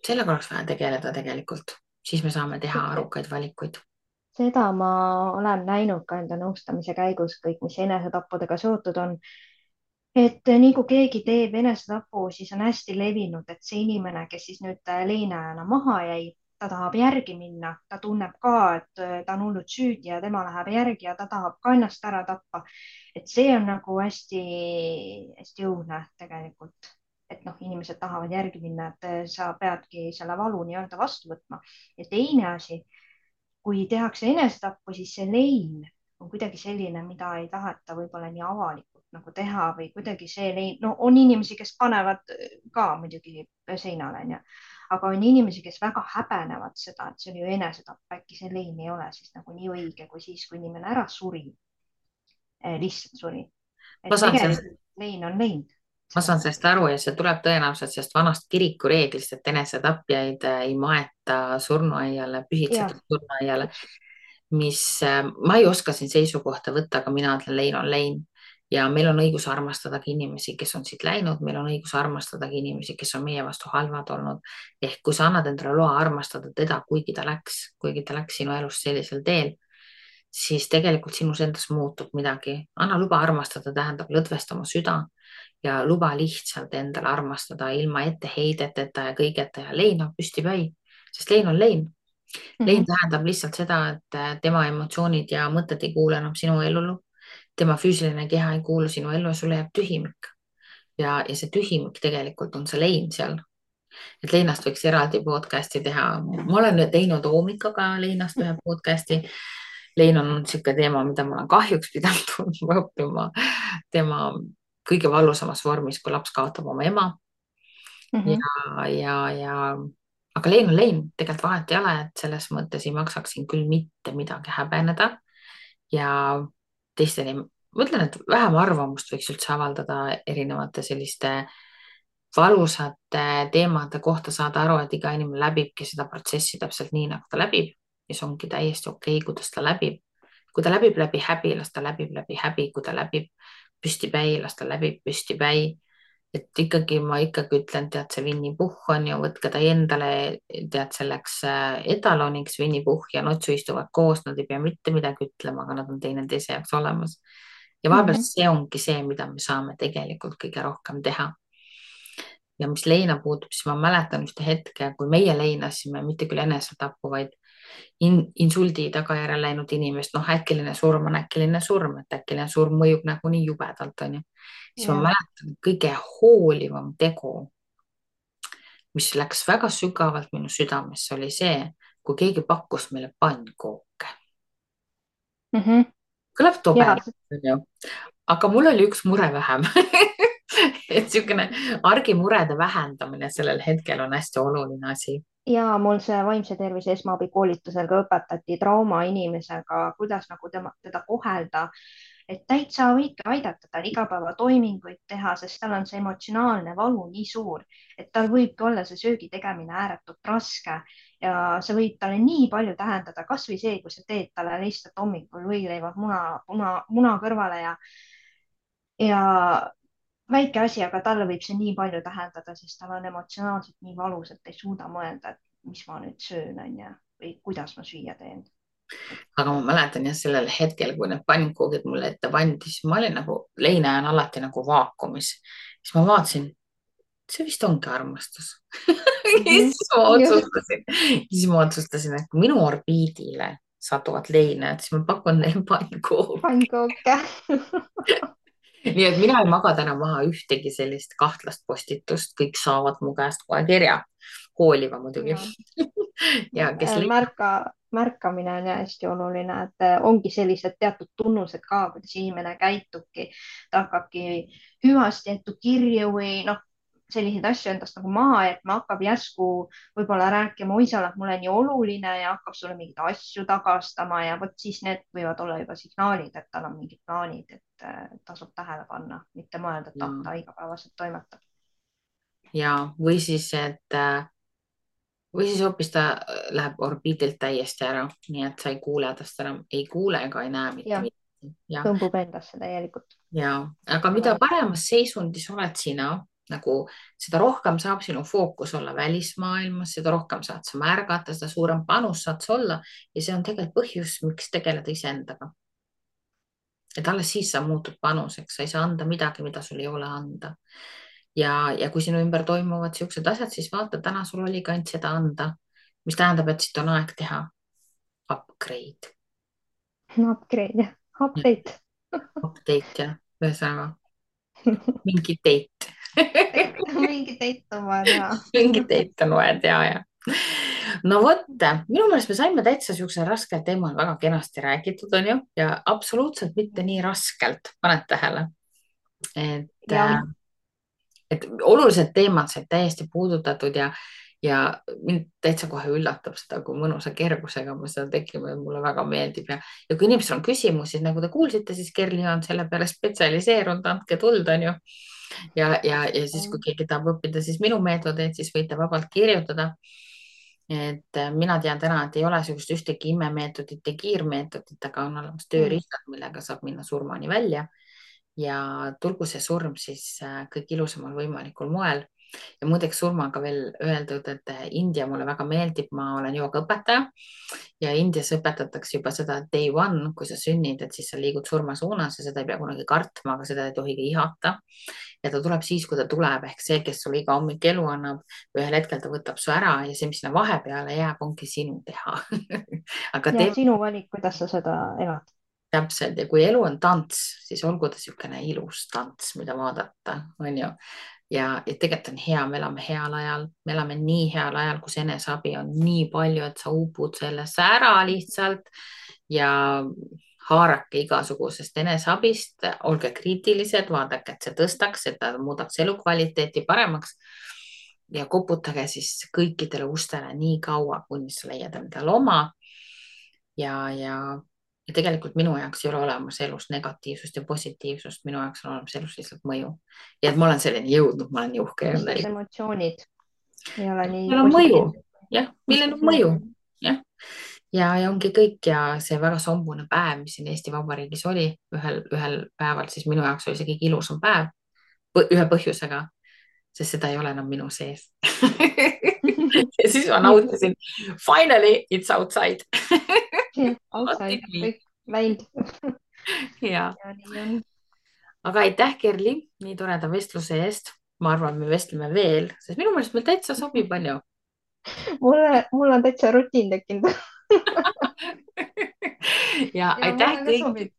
sellega oleks vaja tegeleda tegelikult, siis me saame teha arukaid valikuid. seda ma olen näinud ka enda nõustamise käigus, kõik, mis enesetappudega seotud on. et nii kui keegi teeb enesetapu, siis on hästi levinud, et see inimene, kes siis nüüd leinajana maha jäi, ta tahab järgi minna, ta tunneb ka, et ta on hullult süüdi ja tema läheb järgi ja ta tahab ka ennast ära tappa. et see on nagu hästi-hästi õudne tegelikult, et noh, inimesed tahavad järgi minna, et sa peadki selle valu nii-öelda vastu võtma. ja teine asi, kui tehakse enesetappu, siis see lein on kuidagi selline, mida ei taheta võib-olla nii avalikult nagu teha või kuidagi see lein, no on inimesi, kes panevad ka muidugi seinale, onju, aga on inimesi, kes väga häbenevad seda, et see oli ju enesetapp, äkki see lein ei ole siis nagu nii õige kui siis, kui inimene ära suri, lihtsalt suri. ma et saan sellest tegelikult lein on lein ma selles saan sellest mõttes. aru ja see tuleb tõenäoliselt sellest vanast kiriku reeglist, et enesetapjaid ei maeta surnuaiale, jah, pühitsetud surnuaiale, täpselt. mis ma ei oska siin seisukohta võtta, aga mina ütlen, lein on lein. ja meil on õigus armastadagi inimesi, kes on siit läinud, meil on õigus armastadagi inimesi, kes on meie vastu halvad olnud. ehk kui sa annad endale loa armastada teda, kuigi ta läks sinu elust sellisel teel, siis tegelikult sinus endas muutub midagi. anna luba armastada, tähendab lõdvesta oma süda ja luba lihtsalt endale armastada ilma etteheideteta ja kõigeta ja leina püstipäi, sest lein on lein. lein Mhm, tähendab lihtsalt seda, et tema emotsioonid ja mõtted ei kuule enam sinu ellu. tema füüsiline keha ei kuulu sinu ellu ja sulle jääb tühimik. ja see tühimik tegelikult on see lein seal. et leinast võiks eraldi podcast'i teha. ma olen teinud Oomikaga leinast ühe podcast'i. lein on niisugune teema, mida ma olen kahjuks pidanud õppima tema kõige valusamas vormis, kui laps kaotab oma ema. mhm, ja aga lein on lein, tegelikult vahet ei ole, et selles mõttes ei maksaks siin küll mitte midagi häbeneda ja teisteni, ma ütlen, et vähem arvamust võiks üldse avaldada erinevate selliste valusate teemade kohta, saada aru, et iga inimene läbibki seda protsessi täpselt nii, nagu ta läbib ja see ongi täiesti okei, kuidas ta läbib. kui ta läbib läbi häbi, las ta läbib läbi häbi, kui ta läbib püstipäi, las ta läbib püstipäi. et ikkagi ma ikkagi ütlen, tead, see Winny Puhh on ju, võtke ta endale, tead, selleks etaloniks. Winny Puhh ja Notsu istuvad koos, nad ei pea mitte midagi ütlema, aga nad on teineteise jaoks olemas. ja vahepeal mhm. see ongi see, mida me saame tegelikult kõige rohkem teha. ja mis leina puutub, siis ma mäletan ühte hetke, kui meie leinasime mitte küll enesetapu, vaid insuldi tagajärjel läinud inimest, noh, äkiline surm on äkiline surm, et äkiline surm mõjub nagunii jubedalt, onju. siis ma jah, mäletan kõige hoolivam tegu, mis läks väga sügavalt minu südamesse, oli see, kui keegi pakkus meile pannkooke. mhm. kõlab tobe, ja onju, aga mul oli üks mure vähem et niisugune argimurede vähendamine sellel hetkel on hästi oluline asi. ja mul see vaimse tervise esmaabikoolitusel ka õpetati traumainimesega, kuidas nagu teda kohelda, et täitsa võidki aidata tal igapäevatoiminguid teha, sest tal on see emotsionaalne valu nii suur, et tal võibki olla see söögi tegemine ääretult raske ja see võib talle nii palju tähendada, kasvõi see, kui sa teed talle lihtsalt hommikul võileivad muna kõrvale ja väike asi, aga talle võib see nii palju tähendada, sest tal on emotsionaalselt nii valus, et ei suuda mõelda, et mis ma nüüd söön, onju, või kuidas ma süüa teen. aga ma mäletan jah, sellel hetkel, kui need pannkoogid mulle ette pandi, siis ma olin nagu, leina on alati nagu vaakumis. siis ma vaatasin, see vist ongi armastus. Siis ma otsustasin, et kui minu orbiidile satuvad leinad, siis ma pakun neile pannkoogi. pannkooke. nii et mina ei maga täna maha ühtegi sellist kahtlast postitust, kõik saavad mu käest kohe kirja. Hooliva muidugi. ja kes märkamine on hästi oluline, et ongi sellised teatud tunnused ka, kuidas inimene käitubki, ta hakkabki hüvasti jättu kirju või noh, selliseid asju endast nagu maha jätma, hakkab järsku võib-olla rääkima, oi, sa oled mulle nii oluline ja hakkab sulle mingeid asju tagastama ja vot siis need võivad olla juba signaalid, et tal on mingid plaanid, et tasub tähele panna, mitte mõelda, et ta igapäevaselt toimetab. ja, või siis hoopis ta läheb orbiidilt täiesti ära, nii et sa ei kuule tast enam, ei kuule ega ei näe mitte midagi. tõmbub endasse täielikult. ja, aga mida paremas seisundis oled sina, nagu seda rohkem saab sinu fookus olla välismaailmas, seda rohkem saad sa märgata, seda suurem panus saad sa olla ja see on tegelikult põhjus, miks tegeleda iseendaga. et alles siis sa muutud panuseks, sa ei saa anda midagi, mida sul ei ole anda. ja kui sinu ümber toimuvad siuksed asjad, siis vaata, täna sul oli ka ainult seda anda, mis tähendab, et siit on aeg teha upgrade. Upgrade, update. Update jah, ühesõnaga mingi date. mingi date on vaja teha. mingi date on vaja teha, jah. no vot, minu meelest me saime täitsa siuksel raskel teemal väga kenasti räägitud, onju, ja absoluutselt mitte nii raskelt, paned tähele, et olulised teemad said täiesti puudutatud ja mind täitsa kohe üllatab seda, kui mõnusa kergusega me seda tegime, mulle väga meeldib ja kui inimestel on küsimusi, nagu te kuulsite, siis Kerli on selle peale spetsialiseerunud, andke tuld, onju. ja siis, kui keegi tahab õppida, siis minu meetodeid, siis võite vabalt kirjutada. et mina tean täna, et ei ole sellist ühtegi imemeetodit ja kiirmeetodit, aga on olemas tööriistad, millega saab minna surmani välja. ja tulgu see surm siis kõik ilusamal võimalikul moel. ja muideks surmaga veel öeldud, et India mulle väga meeldib, ma olen joogaõpetaja ja Indias õpetatakse juba seda day one, kui sa sünnid, et siis sa liigud surma suunas ja seda ei pea kunagi kartma, aga seda ei tohi ka ihata. ja ta tuleb siis, kui ta tuleb, ehk see, kes sulle iga hommik elu annab, ühel hetkel ta võtab su ära ja see, mis sinna vahepeale jääb, ongi sinu teha. aga sinu valik, kuidas sa seda elad. täpselt, ja kui elu on tants, siis olgu ta niisugune ilus tants, mida vaadata, on ju. ja tegelikult on hea, me elame heal ajal, me elame nii heal ajal, kus eneseabi on nii palju, et sa upud sellesse ära lihtsalt ja haarake igasugusest eneseabist, olge kriitilised, vaadake, et see tõstaks, et ta muudaks elukvaliteeti paremaks ja koputage siis kõikidele ustele nii kaua, kuni sa leiad endale oma ja tegelikult minu jaoks ei ole olemas elus negatiivsust ja positiivsust, minu jaoks on olemas elus lihtsalt mõju. ja et ma olen selleni jõudnud, ma olen uhke. emotsioonid ei ole nii. millel on mõju, jah, millel on mõju, jah. ja ongi kõik ja see väga sombune päev, mis siin Eesti Vabariigis oli ühel päeval, siis minu jaoks oli see kõige ilusam päev ühe põhjusega, sest seda ei ole enam minu sees. ja siis ma nautisin. Finally it's outside. outside, kõik läinud. ja. aga aitäh, Kerli, nii toreda vestluse eest. ma arvan, me vestleme veel, sest minu meelest meil täitsa sobib, on ju. mul on täitsa rutiin tekkinud. ja aitäh kõigile.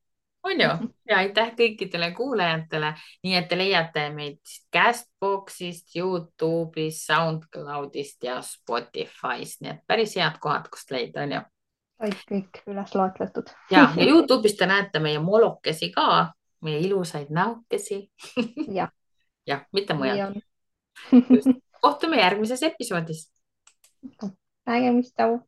on ju, ja aitäh kõikidele kuulajatele, nii et te leiate meid Castboxist, Youtube'ist, SoundCloudist ja Spotify'st, nii et päris head kohad, kust leida, on ju. kõik üles loetletud. ja Youtube'ist te näete meie molokesi ka, meie ilusaid näokesi. jah, mitte mujal. kohtume järgmises episoodis. nägemist, tšau.